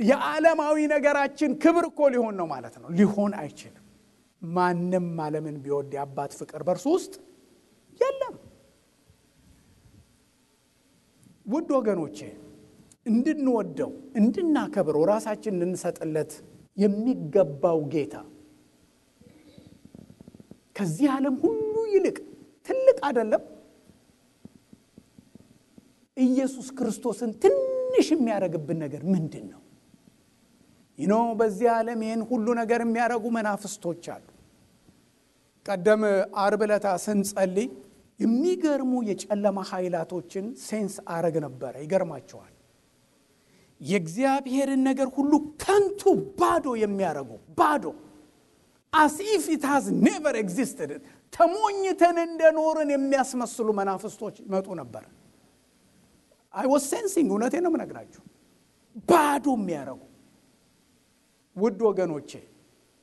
የዓለማዊ ነገራችን ክብር እኮ ሊሆን ነው ማለት ነው። ሊሆን አይችልም። ማንም ዓለምን ቢወድ የአባት ፍቅር በእርሱ ውስጥ የለም። ውድ ወገኖቼ እንድንወደው እንድናከብረው ራሳችን እንድንሰጥለት የሚገባው ጌታ ከዚህ ዓለም ሁሉ ይልቅ ትልቅ አይደለም? ኢየሱስ ክርስቶስን ትንሽ የሚያረግብን ነገር ምንድን ነው? በዚህ ዓለም ይህን ሁሉ ነገር የሚያረጉ መናፍስቶች አሉ። ቀደም ዓርብ ዕለት ስንጸልይ የሚገርሙ የጨለማ ኃይላቶችን ሴንስ አረግ ነበር። ይገርማቸዋል። የእግዚአብሔርን ነገር ሁሉ ከንቱ ባዶ የሚያረጉ ባዶ as if it has never existed ተሞኝተን እንደኖርን የሚያስመስሉ መናፍስቶች መጡ ነበር። I was sensing እውነቴ ነው የምነግራችሁ። ባዶ የሚያረጉ ውድ ወገኖቼ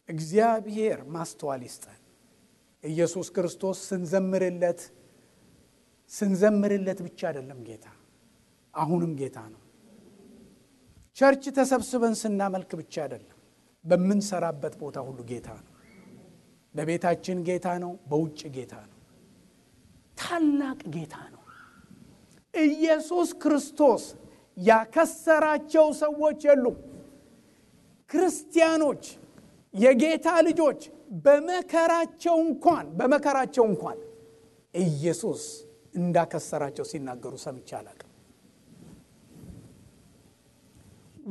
እግዚአብሔር ማስተዋል ይስጠን። ኢየሱስ ክርስቶስ ስንዘምርለት ብቻ አይደለም ጌታ፣ አሁንም ጌታ ነው። ቸርች ተሰብስበን ስናመልክ ብቻ አይደለም፣ በምንሰራበት ቦታ ሁሉ ጌታ ነው። በቤታችን ጌታ ነው፣ በውጭ ጌታ ነው። ታላቅ ጌታ ነው። ኢየሱስ ክርስቶስ ያከሰራቸው ሰዎች የሉም። ክርስቲያኖች የጌታ ልጆች በመከራቸው እንኳን ኢየሱስ እንዳከሰራቸው ሲናገሩ ሰምቼ አላውቅም።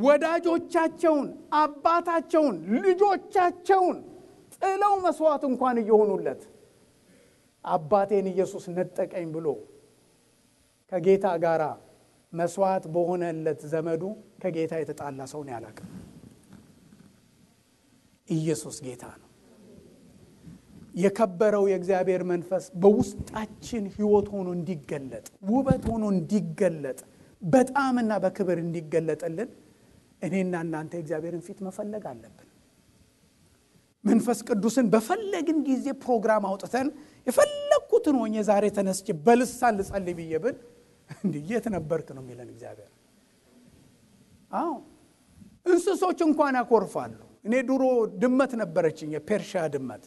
ወዳጆቻቸውን፣ አባታቸውን፣ ልጆቻቸውን ጥለው መስዋዕት እንኳን እየሆኑለት አባቴን ኢየሱስ ነጠቀኝ ብሎ ከጌታ ጋር መስዋዕት በሆነለት ዘመዱ ከጌታ የተጣላ ሰው ነው ያላቀ። ኢየሱስ ጌታ ነው። የከበረው የእግዚአብሔር መንፈስ በውስጣችን ሕይወት ሆኖ እንዲገለጥ፣ ውበት ሆኖ እንዲገለጥ፣ በጣምና በክብር እንዲገለጥልን እኔና እናንተ እግዚአብሔርን ፊት መፈለግ አለብን። መንፈስ ቅዱስን በፈለግን ጊዜ ፕሮግራም አውጥተን የፈለኩትን ሆኜ ዛሬ ተነስቼ በልሳን ልጸልይ ብዬ ብል እንዴት ነበርክ ነው የሚለን እግዚአብሔር። አዎ እንስሶች እንኳን ያኮርፋሉ። እኔ ድሮ ድመት ነበረችኝ፣ የፔርሺያ ድመት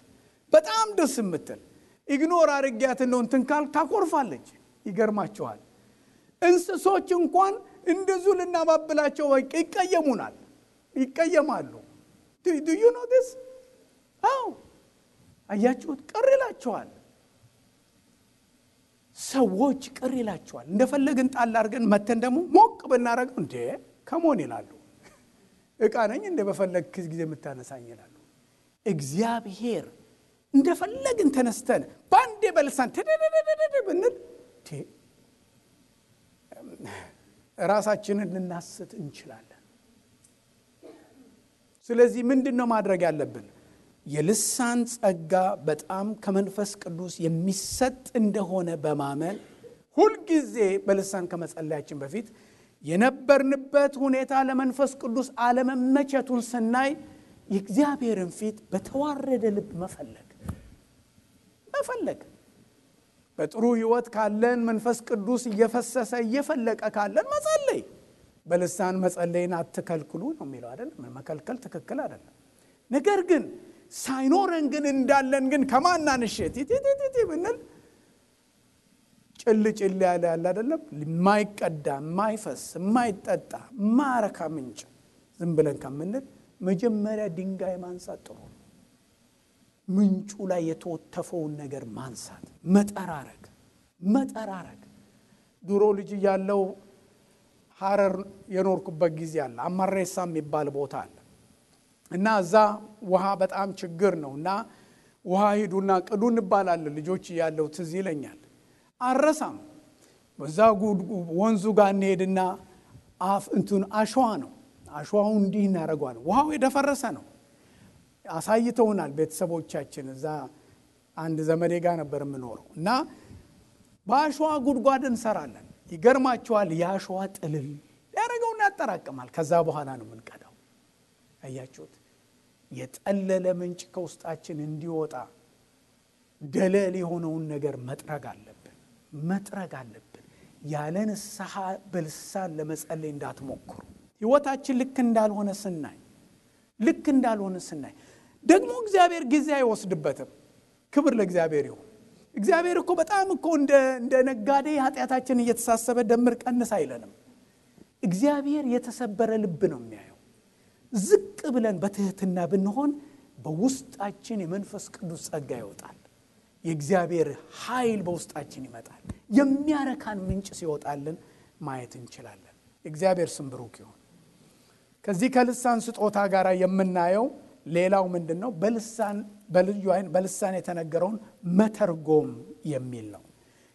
በጣም ደስ የምትል ኢግኖር አድርጊያት ነው እንትን ካል ታኮርፋለች። ይገርማቸዋል። እንስሶች እንኳን እንደዙ ልናባብላቸው ይቀየሙናል፣ ይቀየማሉ። do you know this? አዎ አያችሁት? ቅር ይላቸዋል። ሰዎች ቅር ይላቸዋል። እንደፈለግን ጣል አድርገን መተን ደግሞ ሞቅ ብናረገው እንዴ ከሞን ይላሉ። እቃ ነኝ እንደ በፈለግ ጊዜ የምታነሳኝ ይላሉ። እግዚአብሔር እንደፈለግን ተነስተን ባንዴ በልሳን ተደደደደ ብንል ራሳችንን ልናስት እንችላለን። ስለዚህ ምንድነው ማድረግ ያለብን? የልሳን ጸጋ በጣም ከመንፈስ ቅዱስ የሚሰጥ እንደሆነ በማመን ሁል ጊዜ በልሳን ከመጸለያችን በፊት የነበርንበት ሁኔታ ለመንፈስ ቅዱስ አለመመቸቱን ስናይ የእግዚአብሔርን ፊት በተዋረደ ልብ መፈለግ በጥሩ ህይወት ካለን መንፈስ ቅዱስ እየፈሰሰ እየፈለቀ ካለን መጸለይ። በልሳን መጸለይን አትከልክሉ ነው የሚለው አይደል? መከልከል ትክክል አይደለም። ነገር ግን ሳይኖረን ግን እንዳለን ግን ከማናንሸት ይቲቲቲ ብንል ጭልጭል ያለ አይደለም? የማይቀዳ የማይፈስ የማይጠጣ ማረካ ምንጭ ዝም ብለን ከምንል መጀመሪያ ድንጋይ ማንሳት ጥሩ ነው። ምንጩ ላይ የተወተፈውን ነገር ማንሳት፣ መጠራረግ። ድሮ ልጅ ያለው ሐረር የኖርኩበት ጊዜ አለ። አማሬሳ የሚባል ቦታ አለ እና እዛ ውሃ በጣም ችግር ነውና ውሃ ሄዱና ቅዱ እንባላለን። ልጆች ያለው ትዝ ይለኛል። አረሳም በዛ ወንዙ ጋር እንሄድና አሸዋ ነው። አሸዋው እንዲህ እናደርገዋል። ውሃው የደፈረሰ ነው። አሳይተውናል ቤተሰቦቻችን። እዛ አንድ ዘመዴ ጋር ነበር የምኖረው እና በአሸዋ ጉድጓድ እንሰራለን። ይገርማቸዋል። የአሸዋ ጥልል ያደረገውና ያጠራቅማል። ከዛ በኋላ ነው የምንቀዳው። አያችሁት? የጠለለ ምንጭ ከውስጣችን እንዲወጣ ደለል የሆነውን ነገር መጥረግ አለብን። ያለ ንስሐ በልሳን ለመጸለይ እንዳትሞክሩ። ህይወታችን ልክ እንዳልሆነ ስናይ ደግሞ እግዚአብሔር ጊዜ አይወስድበትም። ክብር ለእግዚአብሔር ይሁን። እግዚአብሔር እኮ በጣም እኮ እንደ ነጋዴ ኃጢአታችን እየተሳሰበ ደምር ቀንስ አይለንም። እግዚአብሔር የተሰበረ ልብ ነው የሚያየው። ዝቅ ብለን በትህትና ብንሆን በውስጣችን የመንፈስ ቅዱስ ጸጋ ይወጣል። የእግዚአብሔር ኃይል በውስጣችን ይመጣል። የሚያረካን ምንጭ ሲወጣልን ማየት እንችላለን። እግዚአብሔር ስም ብሩክ ይሁን። ከዚህ ከልሳን ስጦታ ጋር የምናየው ሌላው ምንድነው? በልዩ አይን በልሳን የተነገረውን መተርጎም የሚል ነው።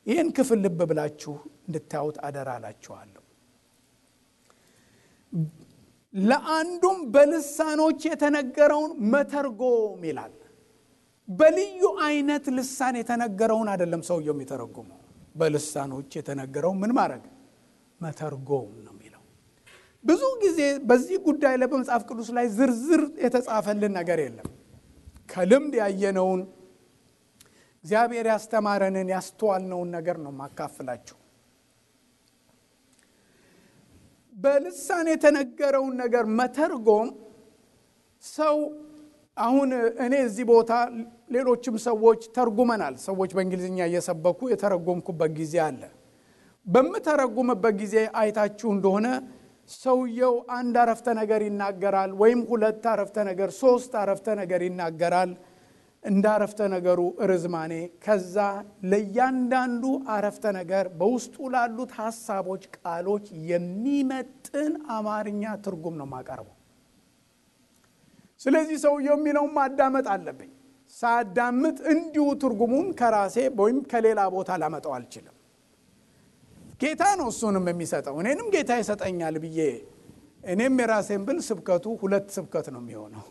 ይህን ክፍል ልብ ብላችሁ እንድታዩት አደራላችኋለሁ። ለአንዱም በልሳኖች የተነገረውን መተርጎም ይላል። በልዩ አይነት ልሳን የተነገረውን አይደለም ሰውየው የሚተረጉመው። በልሳኖች የተነገረው ምን ማድረግ? መተርጎም ነው የሚለው። ብዙ ጊዜ በዚህ ጉዳይ ላይ በመጽሐፍ ቅዱስ ላይ ዝርዝር የተጻፈልን ነገር የለም። ከልምድ ያየነውን እግዚአብሔር ያስተማረንን ያስተዋልነውን ነገር ነው ማካፈላችሁ። በልሳን የተነገረውን ነገር መተርጎም ሰው አሁን እኔ እዚህ ቦታ ሌሎችም ሰዎች ተርጉመናል። ሰዎች በእንግሊዝኛ እየሰበኩ የተረጎምኩበት ጊዜ አለ። በመተረጉምበት ጊዜ አይታችሁ እንደሆነ ሰውየው አንድ አረፍተ ነገር ይናገራል ወይም ሁለት አረፍተ ነገር፣ ሶስት አረፍተ ነገር ይናገራል እንደ አረፍተ ነገሩ ርዝማኔ። ከዛ ለእያንዳንዱ አረፍተ ነገር በውስጡ ላሉት ሐሳቦች፣ ቃሎች የሚመጥን አማርኛ ትርጉም ነው ማቀርበው። ስለዚህ ሰውየው የሚለውን ማዳመጥ አለብኝ። ሳዳምጥ እንዲሁ ትርጉሙን ከራሴ ወይም ከሌላ ቦታ ላመጣው አልችልም። ጌታ ነው እሱንም የሚሰጠው። እኔንም ጌታ ይሰጠኛል ብዬ እኔም የራሴን ብል ስብከቱ ሁለት ስብከት ነው የሚሆነው።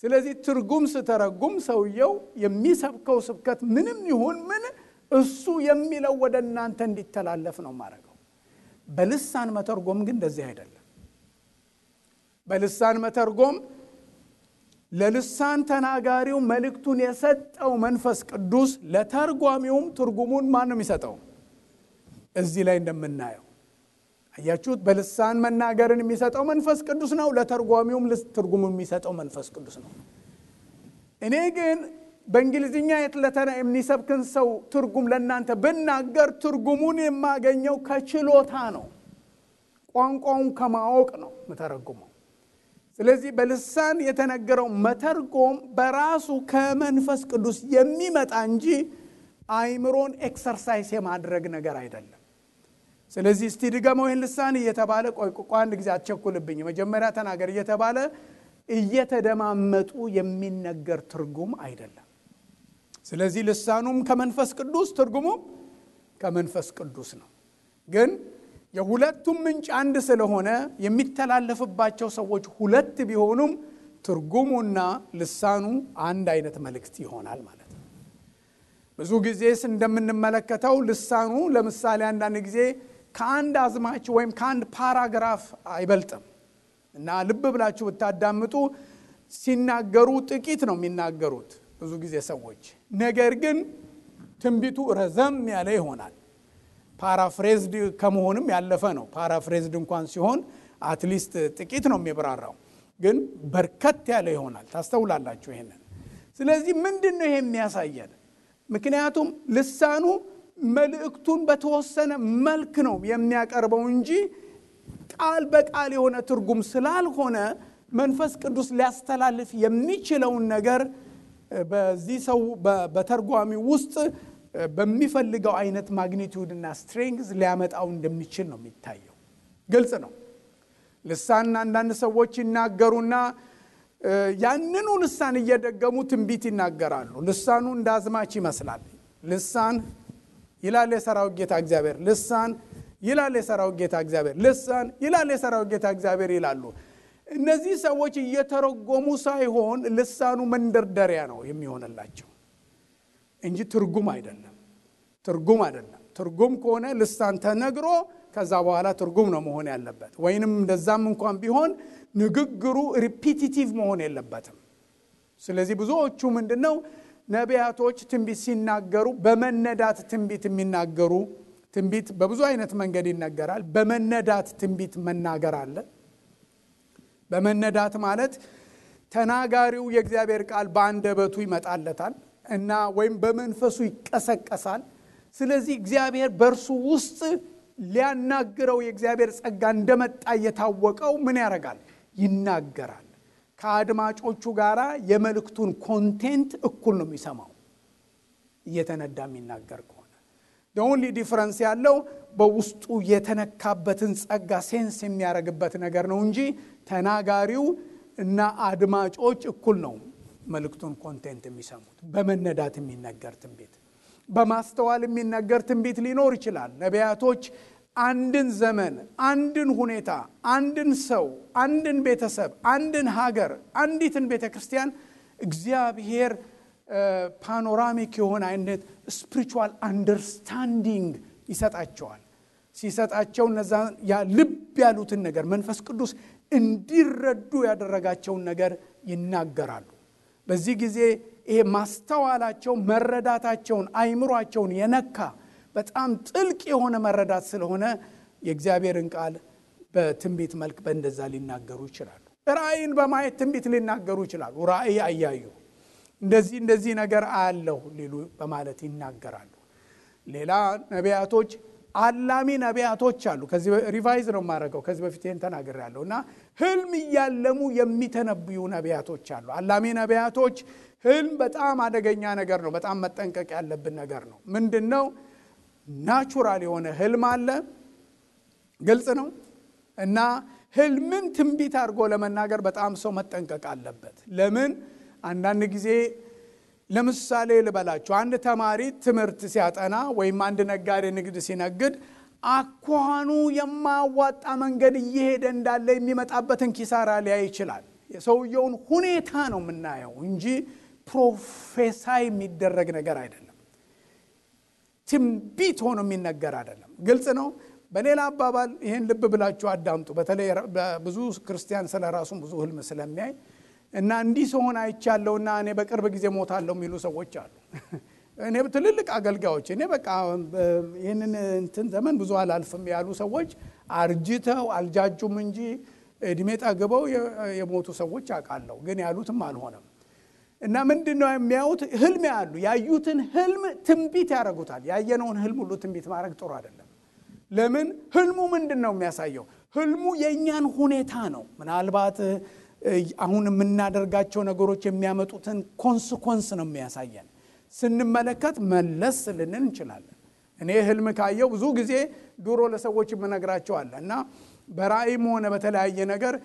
ስለዚህ ትርጉም ስተረጉም ሰውየው የሚሰብከው ስብከት ምንም ይሁን ምን እሱ የሚለው ወደ እናንተ እንዲተላለፍ ነው ማረገው። በልሳን መተርጎም ግን እንደዚህ አይደለም። በልሳን መተርጎም ለልሳን ተናጋሪው መልእክቱን የሰጠው መንፈስ ቅዱስ ለተርጓሚውም ትርጉሙን ማን ነው የሚሰጠው? እዚህ ላይ እንደምናየው አያችሁት? በልሳን መናገርን የሚሰጠው መንፈስ ቅዱስ ነው። ለተርጓሚውም ትርጉም የሚሰጠው መንፈስ ቅዱስ ነው። እኔ ግን በእንግሊዝኛ የሚሰብክን ሰው ትርጉም ለእናንተ ብናገር ትርጉሙን የማገኘው ከችሎታ ነው፣ ቋንቋውን ከማወቅ ነው መተረጉመው። ስለዚህ በልሳን የተነገረው መተርጎም በራሱ ከመንፈስ ቅዱስ የሚመጣ እንጂ አይምሮን ኤክሰርሳይዝ የማድረግ ነገር አይደለም። ስለዚህ እስቲ ድገመው ይህን ልሳን እየተባለ ቆይ አንድ ጊዜ አትቸኩልብኝ መጀመሪያ ተናገር እየተባለ እየተደማመጡ የሚነገር ትርጉም አይደለም። ስለዚህ ልሳኑም ከመንፈስ ቅዱስ ትርጉሙም ከመንፈስ ቅዱስ ነው። ግን የሁለቱም ምንጭ አንድ ስለሆነ የሚተላለፍባቸው ሰዎች ሁለት ቢሆኑም ትርጉሙና ልሳኑ አንድ አይነት መልእክት ይሆናል ማለት ነው። ብዙ ጊዜ እንደምንመለከተው ልሳኑ ለምሳሌ አንዳንድ ጊዜ ከአንድ አዝማች ወይም ከአንድ ፓራግራፍ አይበልጥም እና ልብ ብላችሁ ብታዳምጡ ሲናገሩ ጥቂት ነው የሚናገሩት ብዙ ጊዜ ሰዎች። ነገር ግን ትንቢቱ ረዘም ያለ ይሆናል። ፓራፍሬዝድ ከመሆንም ያለፈ ነው። ፓራፍሬዝድ እንኳን ሲሆን አትሊስት ጥቂት ነው የሚብራራው፣ ግን በርከት ያለ ይሆናል። ታስተውላላችሁ ይሄንን። ስለዚህ ምንድነው ይሄ የሚያሳየን? ምክንያቱም ልሳኑ መልእክቱን በተወሰነ መልክ ነው የሚያቀርበው እንጂ ቃል በቃል የሆነ ትርጉም ስላልሆነ መንፈስ ቅዱስ ሊያስተላልፍ የሚችለውን ነገር በዚህ ሰው በተርጓሚ ውስጥ በሚፈልገው አይነት ማግኒቲዩድና ስትሬንግዝ ሊያመጣው እንደሚችል ነው የሚታየው። ግልጽ ነው። ልሳን አንዳንድ ሰዎች ይናገሩና ያንኑ ልሳን እየደገሙ ትንቢት ይናገራሉ። ልሳኑ እንዳዝማች ይመስላል። ልሳን ይላል የሰራዊት ጌታ እግዚአብሔር፣ ልሳን ይላል የሰራዊት ጌታ እግዚአብሔር፣ ልሳን ይላል የሰራዊት ጌታ እግዚአብሔር ይላሉ። እነዚህ ሰዎች እየተረጎሙ ሳይሆን ልሳኑ መንደርደሪያ ነው የሚሆንላቸው እንጂ ትርጉም አይደለም። ትርጉም ከሆነ ልሳን ተነግሮ ከዛ በኋላ ትርጉም ነው መሆን ያለበት። ወይንም እንደዛም እንኳን ቢሆን ንግግሩ ሪፒቲቲቭ መሆን የለበትም። ስለዚህ ብዙዎቹ ምንድነው ነቢያቶች ትንቢት ሲናገሩ በመነዳት ትንቢት የሚናገሩ፣ ትንቢት በብዙ አይነት መንገድ ይነገራል። በመነዳት ትንቢት መናገር አለ። በመነዳት ማለት ተናጋሪው የእግዚአብሔር ቃል በአንደበቱ ይመጣለታል እና ወይም በመንፈሱ ይቀሰቀሳል። ስለዚህ እግዚአብሔር በእርሱ ውስጥ ሊያናግረው የእግዚአብሔር ጸጋ እንደመጣ የታወቀው ምን ያደርጋል? ይናገራል። ከአድማጮቹ ጋራ የመልእክቱን ኮንቴንት እኩል ነው የሚሰማው እየተነዳ የሚናገር ከሆነ። the only difference ያለው በውስጡ የተነካበትን ጸጋ ሴንስ የሚያደርግበት ነገር ነው እንጂ ተናጋሪው እና አድማጮች እኩል ነው መልእክቱን ኮንቴንት የሚሰሙት። በመነዳት የሚነገር ትንቢት፣ በማስተዋል የሚነገር ትንቢት ሊኖር ይችላል። ነቢያቶች አንድን ዘመን፣ አንድን ሁኔታ፣ አንድን ሰው፣ አንድን ቤተሰብ፣ አንድን ሀገር፣ አንዲትን ቤተክርስቲያን እግዚአብሔር ፓኖራሚክ የሆነ አይነት ስፒሪቹዋል አንደርስታንዲንግ ይሰጣቸዋል። ሲሰጣቸው እነዛ ልብ ያሉትን ነገር መንፈስ ቅዱስ እንዲረዱ ያደረጋቸውን ነገር ይናገራሉ። በዚህ ጊዜ ይሄ ማስተዋላቸው፣ መረዳታቸውን፣ አይምሯቸውን የነካ በጣም ጥልቅ የሆነ መረዳት ስለሆነ የእግዚአብሔርን ቃል በትንቢት መልክ በእንደዛ ሊናገሩ ይችላሉ። ራእይን በማየት ትንቢት ሊናገሩ ይችላሉ። ራእይ አያዩ እንደዚህ ነገር አያለሁ ሊሉ በማለት ይናገራሉ። ሌላ ነቢያቶች አላሚ ነቢያቶች አሉ። ከዚህ ሪቫይዝ ነው ማረጋው፣ ከዚህ በፊት ይሄን ተናግሬያለሁና ህልም ያለሙ የሚተነብዩ ነቢያቶች አሉ። አላሚ ነቢያቶች ህልም በጣም አደገኛ ነገር ነው። በጣም መጠንቀቅ ያለብን ነገር ነው። ምንድነው? ናቹራል የሆነ ህልም አለ፣ ግልጽ ነው። እና ህልምን ትንቢት አድርጎ ለመናገር በጣም ሰው መጠንቀቅ አለበት። ለምን? አንዳንድ ጊዜ ለምሳሌ ልበላችሁ፣ አንድ ተማሪ ትምህርት ሲያጠና ወይም አንድ ነጋዴ ንግድ ሲነግድ አኳኑ የማያዋጣ መንገድ እየሄደ እንዳለ የሚመጣበትን ኪሳራ ሊያይ ይችላል። የሰውየውን ሁኔታ ነው የምናየው እንጂ ፕሮፌሳይ የሚደረግ ነገር አይደለም። ትንቢት ሆኖ የሚነገር አይደለም። ግልጽ ነው። በሌላ አባባል ይሄን ልብ ብላችሁ አዳምጡ። በተለይ ብዙ ክርስቲያን ስለራሱ ብዙ ህልም ስለሚያይ እና እንዲህ ሲሆን አይቻለውና እኔ በቅርብ ጊዜ ሞታለሁ የሚሉ ሰዎች አሉ። እኔ ትልልቅ አገልጋዮች እኔ በቃ ይሄንን እንትን ዘመን ብዙ አላልፍም ያሉ ሰዎች አርጅተው አልጃጁም እንጂ እድሜ ጠግበው የሞቱ ሰዎች አውቃለሁ። ግን ያሉትም አልሆነም። እና ምንድነው የሚያዩት? ህልም ያሉ ያዩትን ህልም ትንቢት ያደርጉታል። ያየነውን ህልም ሁሉ ትንቢት ማድረግ ጥሩ አይደለም። ለምን? ህልሙ ምንድነው የሚያሳየው? ህልሙ የኛን ሁኔታ ነው። ምናልባት አሁን የምናደርጋቸው ነገሮች የሚያመጡትን ኮንሲኩዌንስ ነው የሚያሳየን። ስንመለከት መለስ ልንን እንችላለን። እኔ ህልም ካየው ብዙ ጊዜ ድሮ ለሰዎች የምነግራቸው አለ እና በራእይም ሆነ በተለያየ ነገር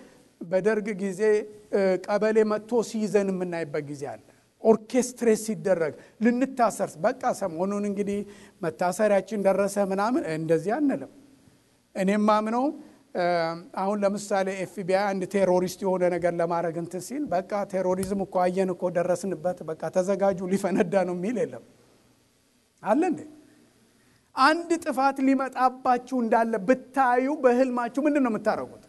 በደርግ ጊዜ ቀበሌ መጥቶ ሲይዘን የምናይበት ጊዜ አለ። ኦርኬስትሬት ሲደረግ ልንታሰር በቃ ሰሞኑን እንግዲህ መታሰሪያችን ደረሰ ምናምን እንደዚህ አንልም። እኔም ማምነው አሁን ለምሳሌ ኤፍቢአይ አንድ ቴሮሪስት የሆነ ነገር ለማድረግ እንትን ሲል በቃ ቴሮሪዝም እኮ አየን እኮ ደረስንበት በቃ ተዘጋጁ ሊፈነዳ ነው የሚል የለም አለ እንዴ? አንድ ጥፋት ሊመጣባችሁ እንዳለ ብታዩ በህልማችሁ ምንድነው የምታረጉት?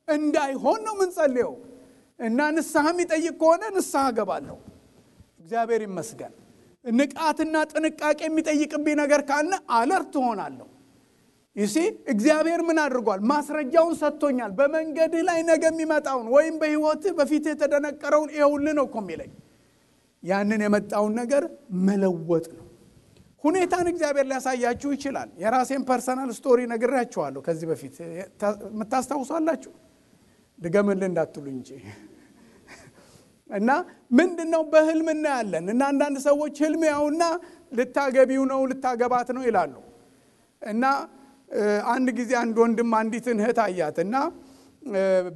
እንዳይሆን ነው የምንጸልየው። እና ንስሐ የሚጠይቅ ከሆነ ንስሐ ገባለሁ። እግዚአብሔር ይመስገን። ንቃትና ጥንቃቄ የሚጠይቅብኝ ነገር ካለ አለርት ሆናለሁ። ይሲ እግዚአብሔር ምን አድርጓል? ማስረጃውን ሰጥቶኛል። በመንገድህ ላይ ነገ የሚመጣውን ወይም በህይወትህ በፊትህ የተደነቀረውን ይኸውልህ ነው እኮ የሚለኝ። ያንን የመጣውን ነገር መለወጥ ነው። ሁኔታን እግዚአብሔር ሊያሳያችሁ ይችላል። የራሴን ፐርሰናል ስቶሪ ነግራችኋለሁ ከዚህ በፊት የምታስታውሳላችሁ። ድገምልህ እንዳትሉ እንጂ እና ምንድነው በህልም እናያለን። እና አንዳንድ ሰዎች ህልም ያውና ልታገቢው ነው ልታገባት ነው ይላሉ። እና አንድ ጊዜ አንድ ወንድም አንዲትን እህት አያትና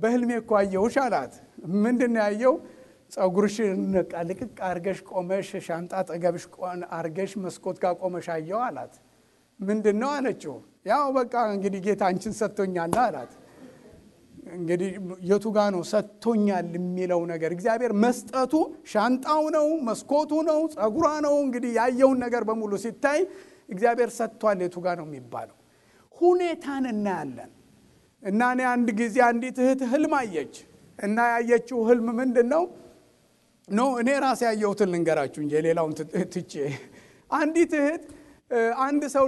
በህልሜ እኮ አየሁሽ አላት። ምንድነው ያየው? ጸጉርሽን ልቅቅ አርገሽ ቆመሽ ሻንጣ ጠገብሽ አርገሽ መስኮት ጋር ቆመሽ አየሁ አላት። ምንድነው አለችው? ያው በቃ እንግዲህ ጌታ አንቺን ሰጥቶኛል አላት። እንግዲህ የቱ ጋር ነው ሰጥቶኛል የሚለው ነገር? እግዚአብሔር መስጠቱ ሻንጣው ነው መስኮቱ ነው ጸጉሯ ነው። እንግዲህ ያየውን ነገር በሙሉ ሲታይ እግዚአብሔር ሰጥቷል የቱ ጋር ነው የሚባለው? ሁኔታን እናያለን። እና እኔ አንድ ጊዜ አንዲት እህት ህልም አየች እና ያየችው ህልም ምንድነው ነው? እኔ ራሴ ያየሁትን ልንገራችሁ እንጂ ሌላውን ትቼ። አንዲት እህት አንድ ሰው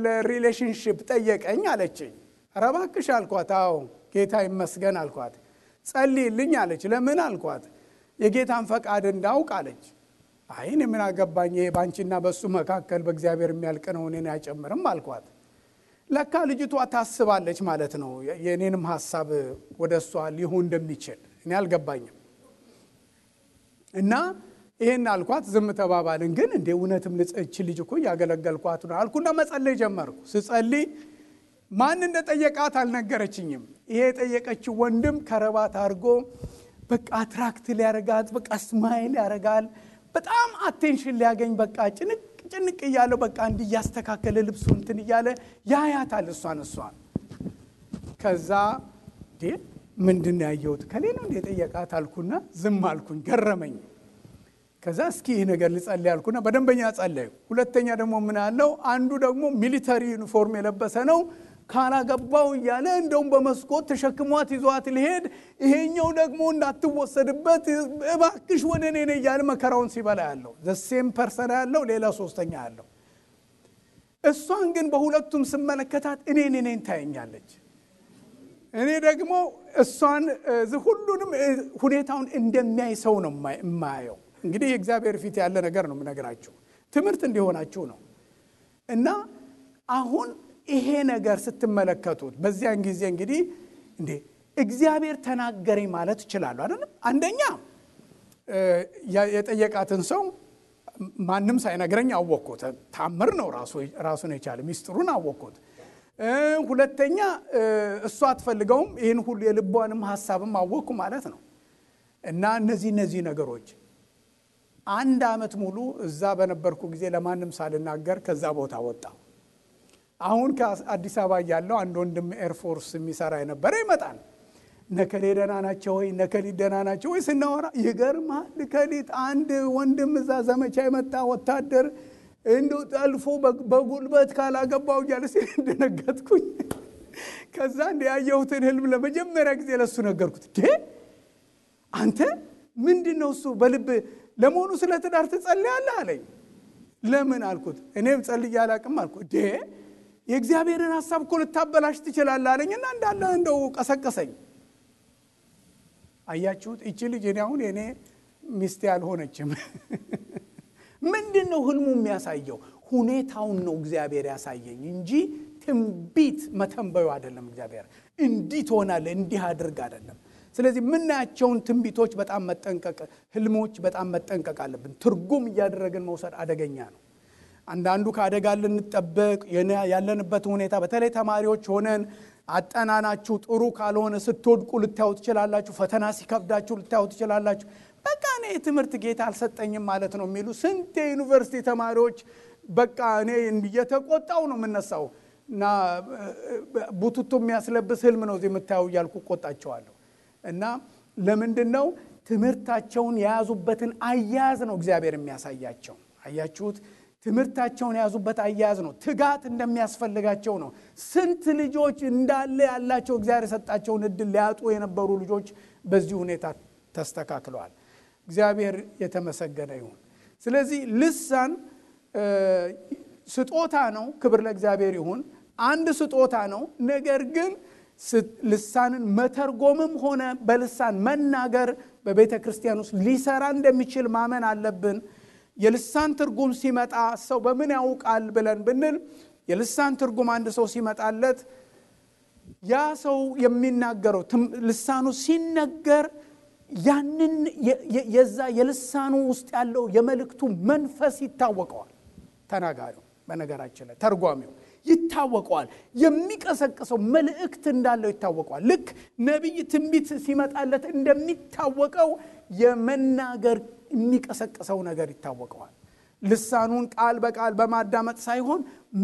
ለሪሌሽንሺፕ ጠየቀኝ አለችኝ። ኧረ እባክሽ አልኳት። አዎ ጌታ ይመስገን አልኳት። ጸልይልኝ አለች። ለምን አልኳት። የጌታን ፈቃድ እንዳውቅ አለች። አይ እኔ ምን አገባኝ ባንቺና በሱ መካከል በእግዚአብሔር የሚያልቅ ነው እኔን አይጨምርም አልኳት። ለካ ልጅቷ ታስባለች ማለት ነው የኔንም ሐሳብ ወደሷ ሊሆን እንደሚችል እኔ አልገባኝም። እና ይሄን አልኳት። ዝም ተባባልን። ግን እንደ እውነትም ልጽች ልጅ እኮ ያገለገልኳት ነው አልኩና መጸለይ ጀመርኩ። ስጸልይ ማን እንደጠየቃት አልነገረችኝም። ይሄ የጠየቀችው ወንድም ከረባት አድርጎ በቃ አትራክት ሊያረጋት በቃ ስማይል ያረጋል። በጣም አቴንሽን ሊያገኝ በቃ ጭንቅ እያለው በቃ እንዲያስተካከለ ልብሱን እንትን እያለ ያያታል እሷን። ከዛ ምንድነው ያየሁት? ከሌላ እንደ ጠየቃት አልኩና ዝም አልኩኝ። ገረመኝ። ከዛ እስኪ ይሄ ነገር ልጸልይ አልኩና በደንበኛ ጸለይኩ። ሁለተኛ ደግሞ ምን አለው? አንዱ ደግሞ ሚሊተሪ ዩኒፎርም የለበሰ ነው። ካላገባው እያለ እንደውም በመስኮት ተሸክሟት ይዟት ሊሄድ፣ ይሄኛው ደግሞ እንዳትወሰድበት እባክሽ ወደ እኔ ነይ እያለ መከራውን ሲበላ ያለው ዘሴም ፐርሰን ያለው ሌላ ሶስተኛ ያለው። እሷን ግን በሁለቱም ስመለከታት እኔን ታየኛለች። እኔ ደግሞ እሷን ሁሉንም ሁኔታውን እንደሚያይ ሰው ነው የማየው። እንግዲህ የእግዚአብሔር ፊት ያለ ነገር ነው የምነግራችሁ፣ ትምህርት እንዲሆናችሁ ነው። እና አሁን ይሄ ነገር ስትመለከቱት በዚያን ጊዜ እንግዲህ እንዴ እግዚአብሔር ተናገረኝ ማለት ይችላል አይደል? አንደኛ የጠየቃትን ሰው ማንም ሳይነግረኝ አወቅኩት። ታምር ነው ራሱን የቻለ ሚስጥሩን አወቅኩት። ሁለተኛ እሷ አትፈልገውም፣ ይሄን ሁሉ የልቧንም ሐሳብም አወቅኩ ማለት ነው። እና እነዚህ ነገሮች አንድ አመት ሙሉ እዛ በነበርኩ ጊዜ ለማንም ሳልናገር ከዛ ቦታ ወጣ። አሁን ከአዲስ አበባ ያለው አንድ ወንድም ኤርፎርስ የሚሰራ የነበረ ይመጣል። ነከሌ ደህና ናቸው ወይ ነከሌ ደህና ናቸው ወይ ስናወራ ይገርማል። ከሊት አንድ ወንድም እዛ ዘመቻ የመጣ ወታደር እንደው ጠልፎ በጉልበት ካላገባው እያለ ሲደነገጥኩኝ። ከዛ ያየሁትን ህልም ለመጀመሪያ ጊዜ ለሱ ነገርኩት። አንተ ምንድነው እሱ በልብ ለመሆኑ ስለ ትዳር ትጸልያለህ አለኝ። ለምን አልኩት። እኔም ጸልዬ አላቅም አልኩት። የእግዚአብሔርን ሐሳብ እኮ ልታበላሽ ትችላለህ አለኝና እንዳለ እንደው ቀሰቀሰኝ። አያችሁት? እቺ ልጅ እኔ አሁን የኔ ሚስት ያልሆነችም ምንድነው ህልሙ የሚያሳየው? ሁኔታውን ነው እግዚአብሔር ያሳየኝ እንጂ ትንቢት መተንበዩ አይደለም። እግዚአብሔር እንዲህ ትሆናለህ እንዲህ አድርግ አይደለም። ስለዚህ ምናያቸውን ትንቢቶች በጣም መጠንቀቅ፣ ህልሞች በጣም መጠንቀቅ አለብን። ትርጉም እያደረግን መውሰድ አደገኛ ነው። አንዳንዱ ከአደጋ ልንጠበቅ ያለንበት ሁኔታ በተለይ ተማሪዎች ሆነን አጠናናችሁ ጥሩ ካልሆነ ስትወድቁ ልታዩ ትችላላችሁ። ፈተና ሲከብዳችሁ ልታዩ ትችላላችሁ። በቃ እኔ ትምህርት ጌታ አልሰጠኝም ማለት ነው የሚሉ ስንት ዩኒቨርሲቲ ተማሪዎች በቃ እኔ እየተቆጣው ነው የምነሳው እና ቡቱቱ የሚያስለብስ ህልም ነው የምታዩ እያልኩ ቆጣቸዋለሁ። እና ለምንድነው ትምህርታቸውን የያዙበትን አያያዝ ነው እግዚአብሔር የሚያሳያቸው። አያችሁት? ትምህርታቸውን የያዙበት አያያዝ ነው። ትጋት እንደሚያስፈልጋቸው ነው። ስንት ልጆች እንዳለ ያላቸው እግዚአብሔር የሰጣቸውን እድል ሊያጡ የነበሩ ልጆች በዚህ ሁኔታ ተስተካክለዋል። እግዚአብሔር የተመሰገነ ይሁን። ስለዚህ ልሳን ስጦታ ነው። ክብር ለእግዚአብሔር ይሁን። አንድ ስጦታ ነው። ነገር ግን ልሳንን መተርጎምም ሆነ በልሳን መናገር በቤተ ክርስቲያን ውስጥ ሊሰራ እንደሚችል ማመን አለብን። የልሳን ትርጉም ሲመጣ ሰው በምን ያውቃል ብለን ብንል የልሳን ትርጉም አንድ ሰው ሲመጣለት ያ ሰው የሚናገረው ልሳኑ ሲነገር ያንን የዛ የልሳኑ ውስጥ ያለው የመልእክቱ መንፈስ ይታወቀዋል። ተናጋሪው በነገራችን ላይ ተርጓሚው ይታወቀዋል። የሚቀሰቅሰው መልእክት እንዳለው ይታወቀዋል። ልክ ነብይ ትንቢት ሲመጣለት እንደሚታወቀው የመናገር የሚቀሰቅሰው ነገር ይታወቀዋል። ልሳኑን ቃል በቃል በማዳመጥ ሳይሆን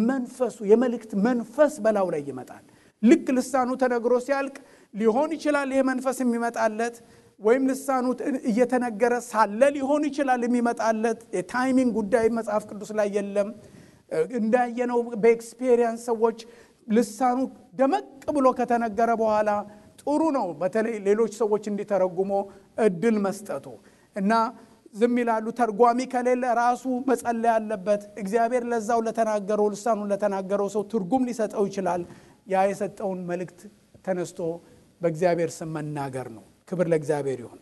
መንፈሱ የመልእክት መንፈስ በላው ላይ ይመጣል። ልክ ልሳኑ ተነግሮ ሲያልቅ ሊሆን ይችላል ይሄ መንፈስ የሚመጣለት ወይም ልሳኑ እየተነገረ ሳለ ሊሆን ይችላል የሚመጣለት። የታይሚንግ ጉዳይ መጽሐፍ ቅዱስ ላይ የለም። እንዳየነው በኤክስፒሪየንስ ሰዎች ልሳኑ ደመቅ ብሎ ከተነገረ በኋላ ጥሩ ነው በተለይ ሌሎች ሰዎች እንዲተረጉሙ እድል መስጠቱ እና ዝም ይላሉ። ተርጓሚ ከሌለ ራሱ መጸለይ ያለበት። እግዚአብሔር ለዛው ለተናገረው ልሳኑን ለተናገረው ሰው ትርጉም ሊሰጠው ይችላል። ያ የሰጠውን መልእክት ተነስቶ በእግዚአብሔር ስም መናገር ነው። ክብር ለእግዚአብሔር ይሁን።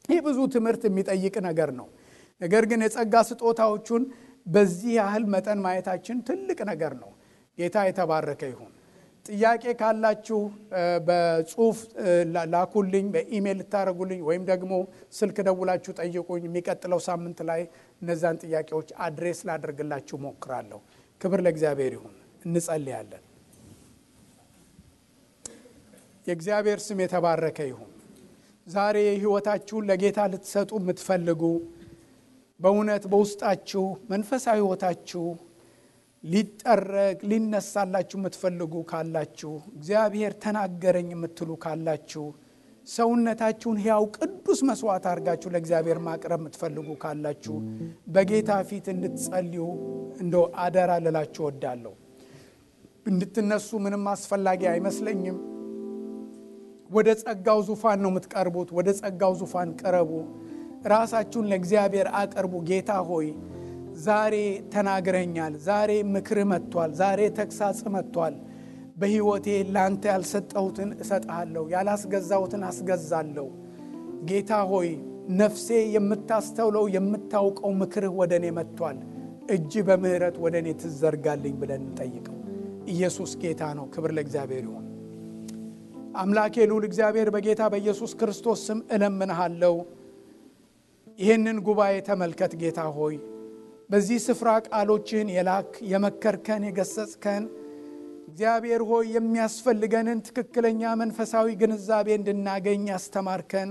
ይህ ብዙ ትምህርት የሚጠይቅ ነገር ነው። ነገር ግን የጸጋ ስጦታዎቹን በዚህ ያህል መጠን ማየታችን ትልቅ ነገር ነው። ጌታ የተባረከ ይሁን። ጥያቄ ካላችሁ በጽሁፍ ላኩልኝ፣ በኢሜል ልታረጉልኝ ወይም ደግሞ ስልክ ደውላችሁ ጠይቁኝ። የሚቀጥለው ሳምንት ላይ እነዛን ጥያቄዎች አድሬስ ላደርግላችሁ ሞክራለሁ። ክብር ለእግዚአብሔር ይሁን። እንጸልያለን። የእግዚአብሔር ስም የተባረከ ይሁን። ዛሬ ህይወታችሁን ለጌታ ልትሰጡ የምትፈልጉ በእውነት በውስጣችሁ መንፈሳዊ ህይወታችሁ ሊጠረግ ሊነሳላችሁ የምትፈልጉ ካላችሁ እግዚአብሔር ተናገረኝ የምትሉ ካላችሁ ሰውነታችሁን ሕያው ቅዱስ መስዋዕት አድርጋችሁ ለእግዚአብሔር ማቅረብ የምትፈልጉ ካላችሁ በጌታ ፊት እንድትጸልዩ እንደው አደራ ልላችሁ እወዳለሁ። እንድትነሱ ምንም አስፈላጊ አይመስለኝም። ወደ ጸጋው ዙፋን ነው የምትቀርቡት። ወደ ጸጋው ዙፋን ቀረቡ። ራሳችሁን ለእግዚአብሔር አቅርቡ። ጌታ ሆይ ዛሬ ተናግረኛል፣ ዛሬ ምክር መጥቷል፣ ዛሬ ተግሳጽ መጥቷል። በህይወቴ ላንተ ያልሰጠሁትን እሰጥሃለሁ፣ ያላስገዛሁትን አስገዛለሁ። ጌታ ሆይ ነፍሴ የምታስተውለው የምታውቀው ምክርህ ወደኔ መጥቷል። እጅ በምህረት ወደኔ ትዘርጋልኝ ብለን እንጠይቀው። ኢየሱስ ጌታ ነው። ክብር ለእግዚአብሔር ይሁን። አምላኬ ልዑል እግዚአብሔር በጌታ በኢየሱስ ክርስቶስ ስም እለምንሃለሁ። ይህንን ጉባኤ ተመልከት ጌታ ሆይ። በዚህ ስፍራ ቃሎችን የላክ የመከርከን የገሰጽከን እግዚአብሔር ሆይ የሚያስፈልገንን ትክክለኛ መንፈሳዊ ግንዛቤ እንድናገኝ ያስተማርከን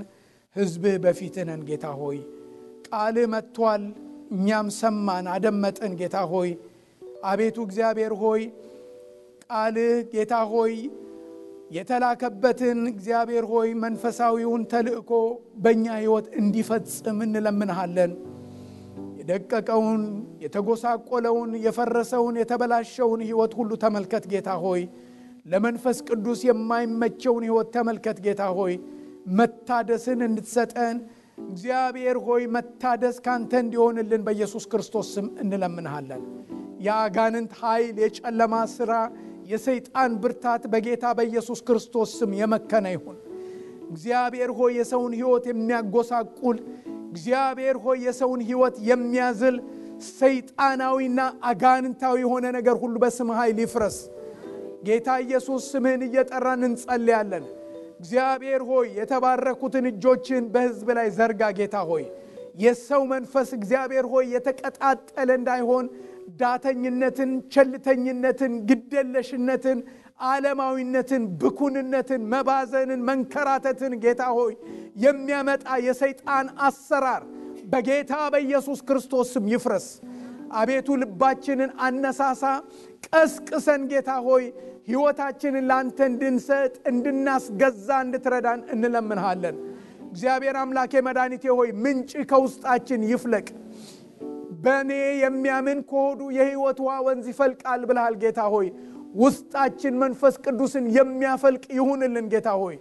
ሕዝብህ በፊትህ ነን ጌታ ሆይ። ቃልህ መጥቷል፣ እኛም ሰማን አደመጥን ጌታ ሆይ። አቤቱ እግዚአብሔር ሆይ ቃልህ ጌታ ሆይ የተላከበትን እግዚአብሔር ሆይ መንፈሳዊውን ተልእኮ በእኛ ሕይወት እንዲፈጽም እንለምንሃለን። የደቀቀውን የተጎሳቆለውን የፈረሰውን የተበላሸውን ሕይወት ሁሉ ተመልከት ጌታ ሆይ። ለመንፈስ ቅዱስ የማይመቸውን ሕይወት ተመልከት ጌታ ሆይ። መታደስን እንድትሰጠን እግዚአብሔር ሆይ መታደስ ካንተ እንዲሆንልን በኢየሱስ ክርስቶስ ስም እንለምንሃለን። የአጋንንት ኃይል፣ የጨለማ ሥራ፣ የሰይጣን ብርታት በጌታ በኢየሱስ ክርስቶስ ስም የመከነ ይሁን። እግዚአብሔር ሆይ የሰውን ሕይወት የሚያጎሳቁል፣ እግዚአብሔር ሆይ የሰውን ሕይወት የሚያዝል ሰይጣናዊና አጋንንታዊ የሆነ ነገር ሁሉ በስም ኃይል ይፍረስ። ጌታ ኢየሱስ ስምህን እየጠራን እንጸልያለን። እግዚአብሔር ሆይ የተባረኩትን እጆችን በሕዝብ ላይ ዘርጋ። ጌታ ሆይ የሰው መንፈስ እግዚአብሔር ሆይ የተቀጣጠለ እንዳይሆን ዳተኝነትን፣ ቸልተኝነትን፣ ግደለሽነትን፣ ዓለማዊነትን፣ ብኩንነትን፣ መባዘንን፣ መንከራተትን ጌታ ሆይ የሚያመጣ የሰይጣን አሰራር በጌታ በኢየሱስ ክርስቶስ ስም ይፍረስ። አቤቱ ልባችንን አነሳሳ፣ ቀስቅሰን ጌታ ሆይ ሕይወታችንን ላንተ እንድንሰጥ እንድናስገዛ እንድትረዳን እንለምንሃለን። እግዚአብሔር አምላኬ መድኃኒቴ ሆይ ምንጭ ከውስጣችን ይፍለቅ። በእኔ የሚያምን ከሆዱ የሕይወት ውሃ ወንዝ ይፈልቃል ብለሃል ጌታ ሆይ። ውስጣችን መንፈስ ቅዱስን የሚያፈልቅ ይሁንልን ጌታ ሆይ።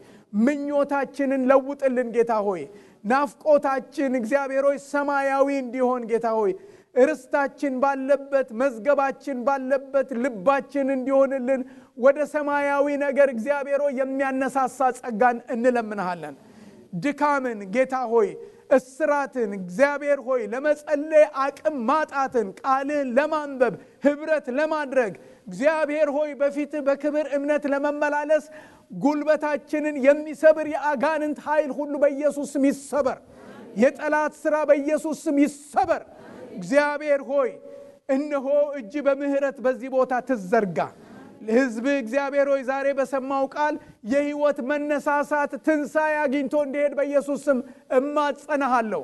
ምኞታችንን ለውጥልን ጌታ ሆይ። ናፍቆታችን እግዚአብሔር ሆይ ሰማያዊ እንዲሆን ጌታ ሆይ ርስታችን ባለበት መዝገባችን ባለበት ልባችን እንዲሆንልን ወደ ሰማያዊ ነገር እግዚአብሔር ሆይ የሚያነሳሳ ጸጋን እንለምንሃለን። ድካምን ጌታ ሆይ እስራትን እግዚአብሔር ሆይ ለመጸለይ አቅም ማጣትን ቃልን ለማንበብ ህብረት ለማድረግ እግዚአብሔር ሆይ በፊት በክብር እምነት ለመመላለስ ጉልበታችንን የሚሰብር የአጋንንት ኃይል ሁሉ በኢየሱስ ስም ይሰበር። የጠላት ሥራ በኢየሱስ ስም ይሰበር። እግዚአብሔር ሆይ እነሆ እጅ በምህረት በዚህ ቦታ ትዘርጋ። ለሕዝብ እግዚአብሔር ሆይ ዛሬ በሰማው ቃል የሕይወት መነሳሳት ትንሣኤ አግኝቶ እንዲሄድ በኢየሱስ ስም እማጸናሃለሁ።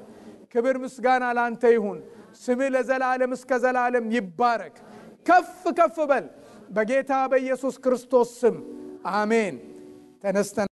ክብር ምስጋና ላንተ ይሁን። ስምህ ለዘላለም እስከ ዘላለም ይባረክ። ከፍ ከፍ በል በጌታ በኢየሱስ ክርስቶስ ስም አሜን። ተነስተን